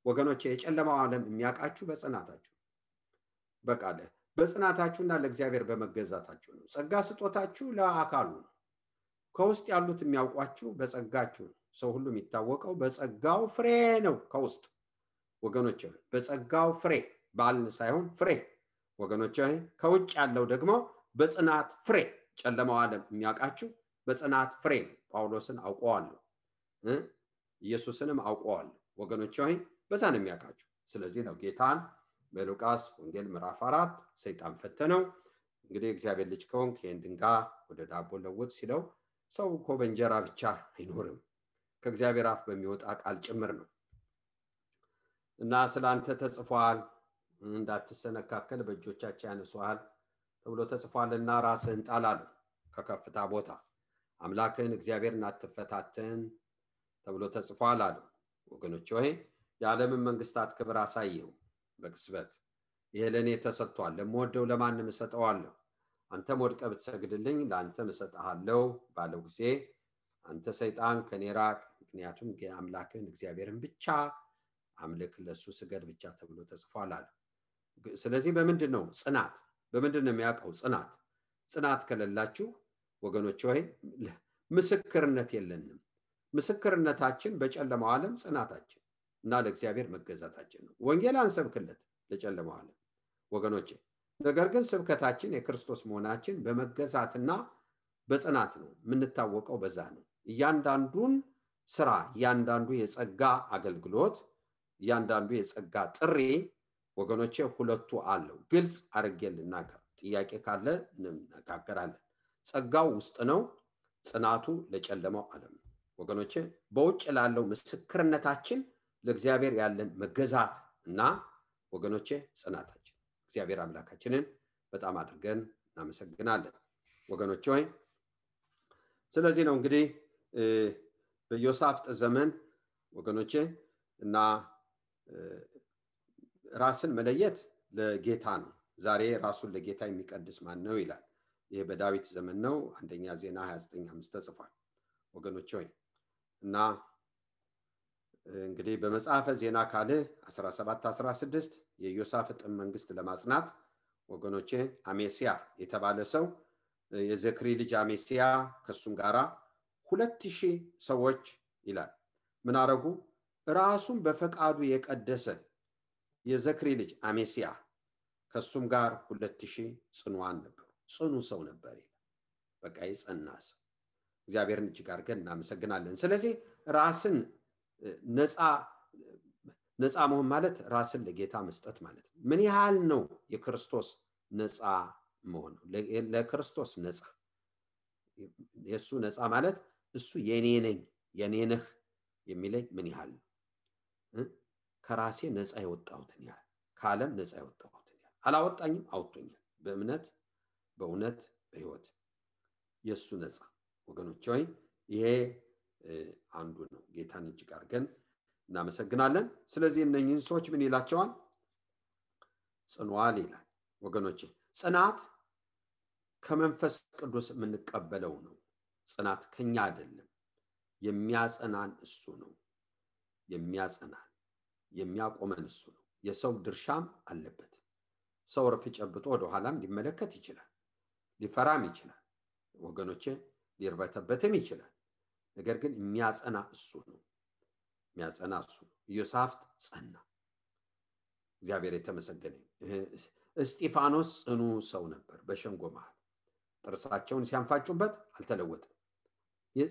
ወገኖች፣ የጨለማው ዓለም የሚያውቃችሁ በጽናታችሁ በቃ በጽናታችሁና ለእግዚአብሔር በመገዛታችሁ ነው። ጸጋ ስጦታችሁ ለአካሉ ነው። ከውስጥ ያሉት የሚያውቋችሁ በጸጋችሁ ነው። ሰው ሁሉ የሚታወቀው በጸጋው ፍሬ ነው። ከውስጥ ወገኖች በጸጋው ፍሬ ባልን ሳይሆን ፍሬ ወገኖች። ከውጭ ያለው ደግሞ በጽናት ፍሬ። ጨለማው ዓለም የሚያውቃችሁ በጽናት ፍሬ ነው። ጳውሎስን አውቀዋለሁ፣ ኢየሱስንም አውቀዋለሁ ወገኖች፣ በዛ ነው የሚያውቃችሁ። ስለዚህ ነው ጌታን በሉቃስ ወንጌል ምዕራፍ 4 ሰይጣን ፈተነው። እንግዲህ እግዚአብሔር ልጅ ከሆንክ ይህን ድንጋይ ወደ ዳቦ ለውጥ ሲለው ሰው እኮ በእንጀራ ብቻ አይኖርም ከእግዚአብሔር አፍ በሚወጣ ቃል ጭምር ነው። እና ስላንተ ተጽፏል፣ እንዳትሰነካከል በእጆቻቸው ያነሱሃል ተብሎ ተጽፏልና ራስህን ጣል አለው ከከፍታ ቦታ። አምላክህን እግዚአብሔርን አትፈታተን ተብሎ ተጽፏል አለው። ወገኖች ሆይ የዓለምን መንግስታት ክብር አሳየው በቅጽበት። ይሄ ለእኔ ተሰጥቷል፣ ለምወደው ለማንም እሰጠዋለሁ። አንተም ወድቀህ ብትሰግድልኝ ለአንተም እሰጥሃለሁ ባለው ጊዜ አንተ ሰይጣን ከኔ ራቅ፣ ምክንያቱም አምላክህን እግዚአብሔርን ብቻ አምልክ፣ ለሱ ስገድ ብቻ ተብሎ ተጽፏል አለ። ስለዚህ በምንድን ነው ጽናት? በምንድን ነው የሚያውቀው ጽናት? ጽናት ከሌላችሁ ወገኖች ሆይ ምስክርነት የለንም። ምስክርነታችን በጨለማው ዓለም ጽናታችን እና ለእግዚአብሔር መገዛታችን ነው። ወንጌል አንሰብክለት ለጨለማው ዓለም ወገኖች፣ ነገር ግን ስብከታችን የክርስቶስ መሆናችን በመገዛትና በጽናት ነው። የምንታወቀው በዛ ነው። እያንዳንዱን ስራ፣ እያንዳንዱ የጸጋ አገልግሎት፣ እያንዳንዱ የጸጋ ጥሪ ወገኖቼ ሁለቱ አለው። ግልጽ አድርጌ ልናገር፣ ጥያቄ ካለ እንነጋገራለን። ጸጋው ውስጥ ነው፣ ጽናቱ ለጨለማው ዓለም ነው ወገኖቼ። በውጭ ላለው ምስክርነታችን ለእግዚአብሔር ያለን መገዛት እና ወገኖቼ ጽናታችን። እግዚአብሔር አምላካችንን በጣም አድርገን እናመሰግናለን ወገኖች ሆይ። ስለዚህ ነው እንግዲህ በዮሳፍጥ ዘመን ወገኖቼ እና ራስን መለየት ለጌታ ነው። ዛሬ ራሱን ለጌታ የሚቀድስ ማን ነው ይላል። ይሄ በዳዊት ዘመን ነው። አንደኛ ዜና 29:5 ተጽፏል ወገኖች ሆይ። እና እንግዲህ በመጽሐፈ ዜና ካልዕ 17:16 የዮሳፍጥን መንግስት ለማጽናት ወገኖቼ አሜሲያ የተባለ ሰው የዘክሪ ልጅ አሜሲያ ከሱም ጋራ 2000 ሰዎች ይላል ምን አረጉ? ራሱን በፈቃዱ የቀደሰ የዘክሪ ልጅ አሜሲያ ከሱም ጋር 2000 ጽኑዓን ነበሩ። ጽኑ ሰው ነበር ይላል። በቃ የጸና ሰው። እግዚአብሔርን እጅግ አድርገን እናመሰግናለን። ስለዚህ ራስን ነፃ መሆን ማለት ራስን ለጌታ መስጠት ማለት ነው። ምን ያህል ነው የክርስቶስ ነፃ መሆን? ለክርስቶስ ነፃ፣ የሱ ነፃ ማለት እሱ የኔ ነኝ የኔ ነህ የሚለኝ ምን ያህል ነው? ከራሴ ነፃ የወጣሁትን ያህል፣ ከዓለም ነፃ የወጣሁትን ያህል። አላወጣኝም፣ አውጥቶኛል። በእምነት በእውነት በህይወት የሱ ነፃ ወገኖች ሆይ ይሄ አንዱ ነው። ጌታን እጅግ አድርገን እናመሰግናለን። ስለዚህ እነኚህን ሰዎች ምን ይላቸዋል? ጽኑዓን ይላል ወገኖቼ። ጽናት ከመንፈስ ቅዱስ የምንቀበለው ነው። ጽናት ከኛ አይደለም። የሚያጸናን እሱ ነው። የሚያጸናን የሚያቆመን እሱ ነው። የሰው ድርሻም አለበት። ሰው ረፍ ጨብጦ ወደ ኋላም ሊመለከት ይችላል፣ ሊፈራም ይችላል ወገኖቼ፣ ሊርበተበትም ይችላል። ነገር ግን የሚያጸና እሱ ነው። የሚያጸና እሱ ነው። ኢዮሳፍጥ ጸና። እግዚአብሔር የተመሰገነ። እስጢፋኖስ ጽኑ ሰው ነበር። በሸንጎ መሃል ጥርሳቸውን ሲያንፋጩበት አልተለወጠም።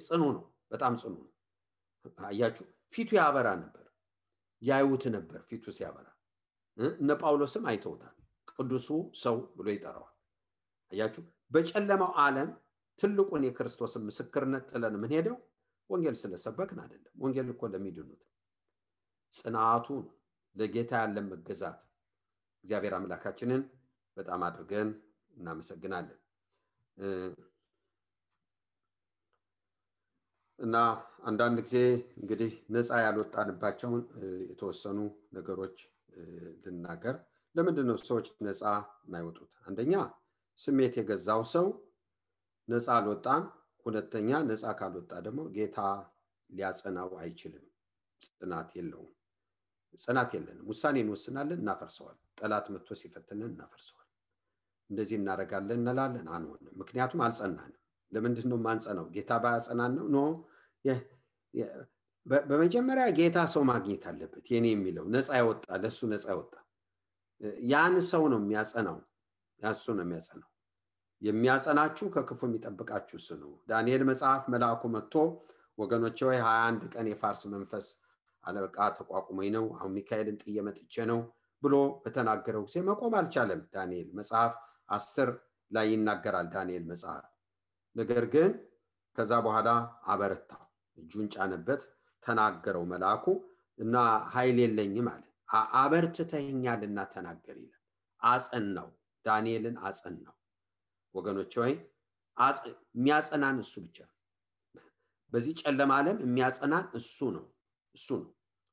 ጽኑ ነው፣ በጣም ጽኑ ነው። አያችሁ፣ ፊቱ ያበራ ነበር። ያዩት ነበር ፊቱ ሲያበራ። እነ ጳውሎስም አይተውታል። ቅዱሱ ሰው ብሎ ይጠራዋል። አያችሁ፣ በጨለማው ዓለም ትልቁን የክርስቶስን ምስክርነት ጥለን ምን ሄደው ወንጌል ስለሰበክን አይደለም። ወንጌል እኮ ለሚድኑት ጽናቱ ለጌታ ያለን መገዛት። እግዚአብሔር አምላካችንን በጣም አድርገን እናመሰግናለን። እና አንዳንድ ጊዜ እንግዲህ ነፃ ያልወጣንባቸውን የተወሰኑ ነገሮች ልናገር። ለምንድን ነው ሰዎች ነፃ የማይወጡት? አንደኛ ስሜት የገዛው ሰው ነፃ አልወጣም። ሁለተኛ ነፃ ካልወጣ ደግሞ ጌታ ሊያጸናው አይችልም። ጽናት የለውም። ጽናት የለንም። ውሳኔ እንወስናለን፣ እናፈርሰዋል። ጠላት መጥቶ ሲፈትነን እናፈርሰዋል። እንደዚህ እናደርጋለን እንላለን፣ አንሆንም። ምክንያቱም አልጸናንም። ለምንድን ነው የማንጸናው? ጌታ ባያጸናን ነው? ኖ በመጀመሪያ ጌታ ሰው ማግኘት አለበት። የኔ የሚለው ነፃ ያወጣ ለሱ ነፃ ያወጣ ያን ሰው ነው የሚያጸናው። ያሱ ነው የሚያጸናው። የሚያጸናችሁ ከክፉ የሚጠብቃችሁ እሱ ነው። ዳንኤል መጽሐፍ መልአኩ መጥቶ ወገኖቼ ሆይ 21 ቀን የፋርስ መንፈስ አለቃ ተቋቁሞኝ ነው፣ አሁን ሚካኤልን ጥዬ መጥቼ ነው ብሎ በተናገረው ጊዜ መቆም አልቻለም። ዳንኤል መጽሐፍ 10 ላይ ይናገራል ዳንኤል መጽሐፍ። ነገር ግን ከዛ በኋላ አበረታው፣ እጁን ጫነበት፣ ተናገረው መልአኩ እና ኃይል የለኝም አለ። አበርትተኸኛልና ተናገር ይላል። አጸናው፣ ዳንኤልን አጸናው። ወገኖች ሆይ የሚያጸናን እሱ ብቻ ነው። በዚህ ጨለማ ዓለም የሚያጸናን እሱ ነው።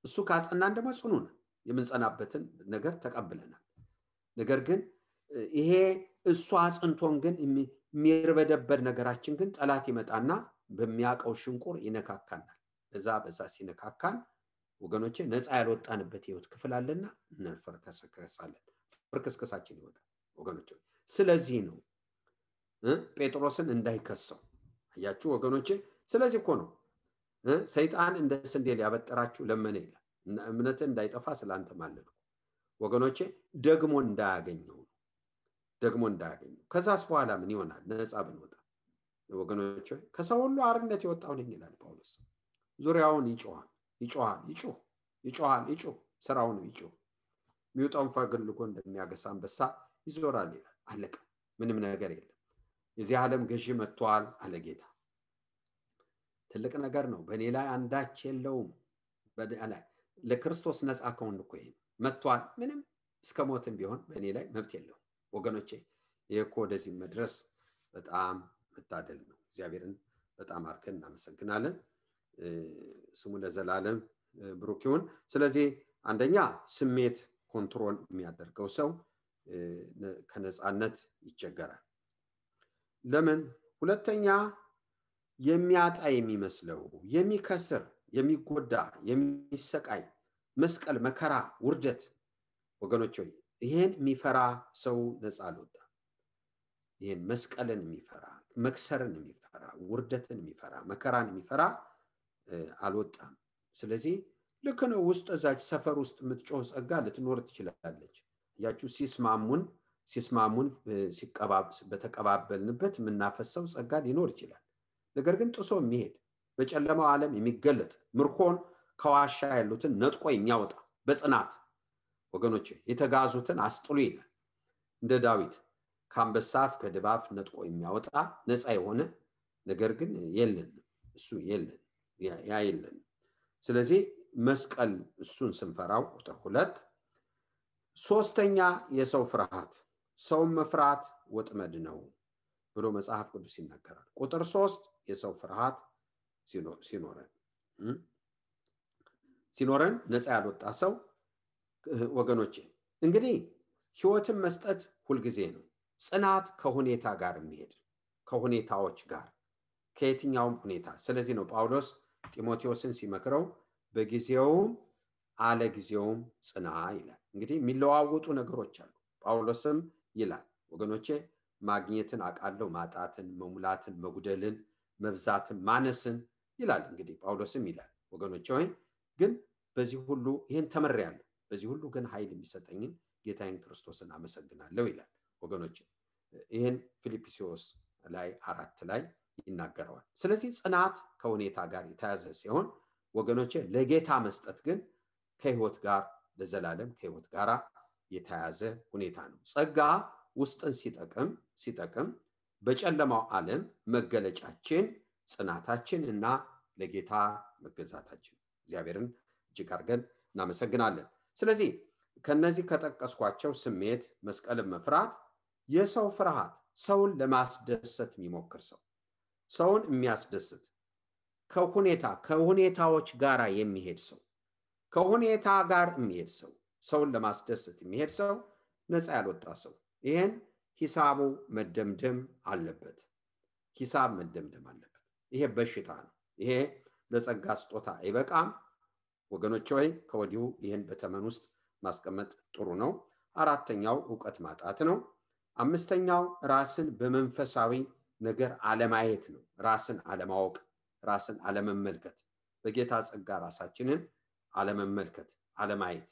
እሱ ካጸናን ደግሞ ጽኑ ነን። የምንጸናበትን ነገር ተቀብለናል። ነገር ግን ይሄ እሱ አጽንቶን ግን የሚርበደበድ ነገራችን ግን ጠላት ይመጣና በሚያቀው ሽንቁር ይነካካናል። በዛ ሲነካካን ወገኖቼ ነፃ ያልወጣንበት ህይወት ክፍል አለና እንፈርከስከሳለን። ፍርክስከሳችን ይወጣል ወገኖቼ። ስለዚህ ነው ጴጥሮስን እንዳይከሰው አያችሁ ወገኖቼ። ስለዚህ እኮ ነው ሰይጣን እንደ ስንዴ ሊያበጥራችሁ ለመነ ይላል። እምነትህ እንዳይጠፋ ስላንተ ማለድኩ ወገኖቼ። ደግሞ እንዳያገኘው። ከዛስ በኋላ ምን ይሆናል? ነፃ ብንወጣ ወገኖቼ። ከሰው ሁሉ አርነት የወጣው ነኝ ይላል ጳውሎስ። ዙሪያውን ይጮሃል፣ ስራውን ይጮህ። የሚወጣውን ፈልጎ እንደሚያገሳ አንበሳ ይዞራል ይላል። አለቀ። ምንም ነገር የለም። የዚህ ዓለም ገዢ መጥቷል አለ ጌታ። ትልቅ ነገር ነው። በእኔ ላይ አንዳች የለውም። ለክርስቶስ ነፃ ከሆን እኮ ይሄ መጥቷል። ምንም እስከ ሞትም ቢሆን በእኔ ላይ መብት የለውም ወገኖቼ። ይሄ እኮ ወደዚህ መድረስ በጣም መታደል ነው። እግዚአብሔርን በጣም አርከን እናመሰግናለን። ስሙ ለዘላለም ብሩክ ይሁን። ስለዚህ አንደኛ ስሜት ኮንትሮል የሚያደርገው ሰው ከነፃነት ይቸገራል። ለምን? ሁለተኛ የሚያጣ የሚመስለው የሚከስር፣ የሚጎዳ፣ የሚሰቃይ መስቀል፣ መከራ፣ ውርደት ወገኖች ሆይ ይሄን የሚፈራ ሰው ነፃ አልወጣም። ይሄን መስቀልን የሚፈራ፣ መክሰርን የሚፈራ፣ ውርደትን የሚፈራ፣ መከራን የሚፈራ አልወጣም። ስለዚህ ልክ ነው። ውስጥ እዛች ሰፈር ውስጥ የምትጮህ ጸጋ ልትኖር ትችላለች። ያችሁ ሲስማሙን በተቀባበልንበት የምናፈሰው ጸጋ ሊኖር ይችላል። ነገር ግን ጥሶ የሚሄድ በጨለማው ዓለም የሚገለጥ ምርኮን ከዋሻ ያሉትን ነጥቆ የሚያወጣ በጽናት ወገኖቼ የተጋዙትን አስጥሉ ይላል። እንደ ዳዊት ከአንበሳ አፍ ከድባፍ ነጥቆ የሚያወጣ ነፃ የሆነ ነገር ግን የለን። እሱ የለን። ስለዚህ መስቀል እሱን ስንፈራው ቁጥር 2። ሶስተኛ የሰው ፍርሃት። ሰውን መፍራት ወጥመድ ነው ብሎ መጽሐፍ ቅዱስ ይናገራል። ቁጥር 3 የሰው ፍርሃት ሲኖረን ነፃ ያልወጣ ሰው ወገኖቼ እንግዲህ ህይወትን መስጠት ሁልጊዜ ነው። ጽናት ከሁኔታ ጋር የሚሄድ ከሁኔታዎች ጋር ከየትኛውም ሁኔታ። ስለዚህ ነው ጳውሎስ ጢሞቴዎስን ሲመክረው በጊዜውም አለ ጊዜውም ጽና ይላል። እንግዲህ የሚለዋወጡ ነገሮች አሉ። ጳውሎስም ይላል ወገኖቼ ማግኘትን አቃለው፣ ማጣትን፣ መሙላትን፣ መጉደልን፣ መብዛትን፣ ማነስን ይላል። እንግዲህ ጳውሎስም ይላል ወገኖቼ ሆይ ግን በዚህ ሁሉ ይሄን ተመሪያለሁ፣ በዚህ ሁሉ ግን ኃይል የሚሰጠኝን ጌታዬን ክርስቶስን አመሰግናለሁ ይላል ወገኖቼ። ይሄን ፊልጵስዩስ ላይ 4 ላይ ይናገረዋል። ስለዚህ ጽናት ከሁኔታ ጋር የተያዘ ሲሆን ወገኖቼ ለጌታ መስጠት ግን ከህይወት ጋር ለዘላለም ከህይወት ጋር የተያዘ ሁኔታ ነው። ጸጋ ውስጥን ሲጠቅም በጨለማው ዓለም መገለጫችን ጽናታችን እና ለጌታ መገዛታችን። እግዚአብሔርን እጅግ አድርገን እናመሰግናለን። ስለዚህ ከነዚህ ከጠቀስኳቸው ስሜት፣ መስቀልን መፍራት፣ የሰው ፍርሃት፣ ሰውን ለማስደሰት የሚሞክር ሰው፣ ሰውን የሚያስደስት ከሁኔታዎች ጋር የሚሄድ ሰው፣ ከሁኔታ ጋር የሚሄድ ሰው፣ ሰውን ለማስደሰት የሚሄድ ሰው ነፃ ያልወጣ ሰው ይሄን ሂሳቡ መደምደም አለበት። ሂሳብ መደምደም አለበት። ይሄ በሽታ ነው። ይሄ ለጸጋ ስጦታ አይበቃም። ወገኖች ሆይ ከወዲሁ ይሄን በተመን ውስጥ ማስቀመጥ ጥሩ ነው። አራተኛው ዕውቀት ማጣት ነው። አምስተኛው ራስን በመንፈሳዊ ነገር አለማየት ነው። ራስን አለማወቅ፣ ራስን አለመመልከት፣ በጌታ ጸጋ ራሳችንን አለመመልከት፣ አለማየት፣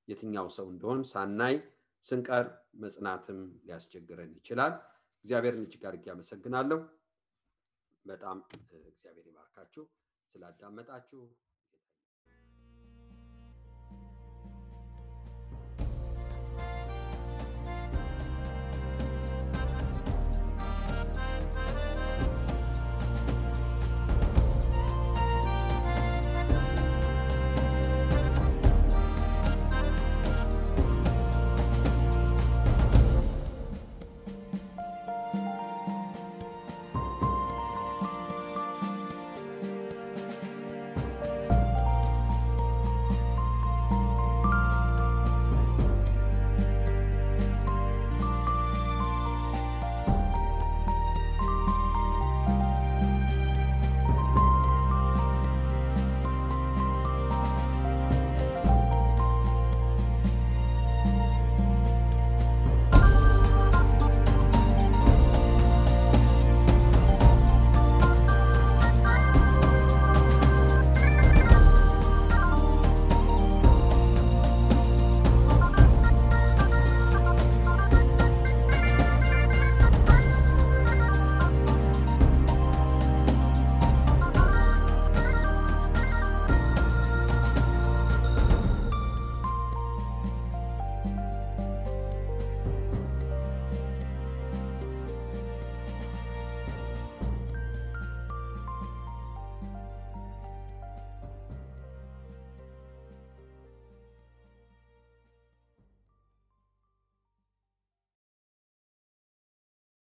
የትኛው ሰው እንደሆን ሳናይ ስንቀር መጽናትም ሊያስቸግረን ይችላል። እግዚአብሔርን እጅግ አድርጌ አመሰግናለሁ። በጣም እግዚአብሔር ይባርካችሁ ስላዳመጣችሁ።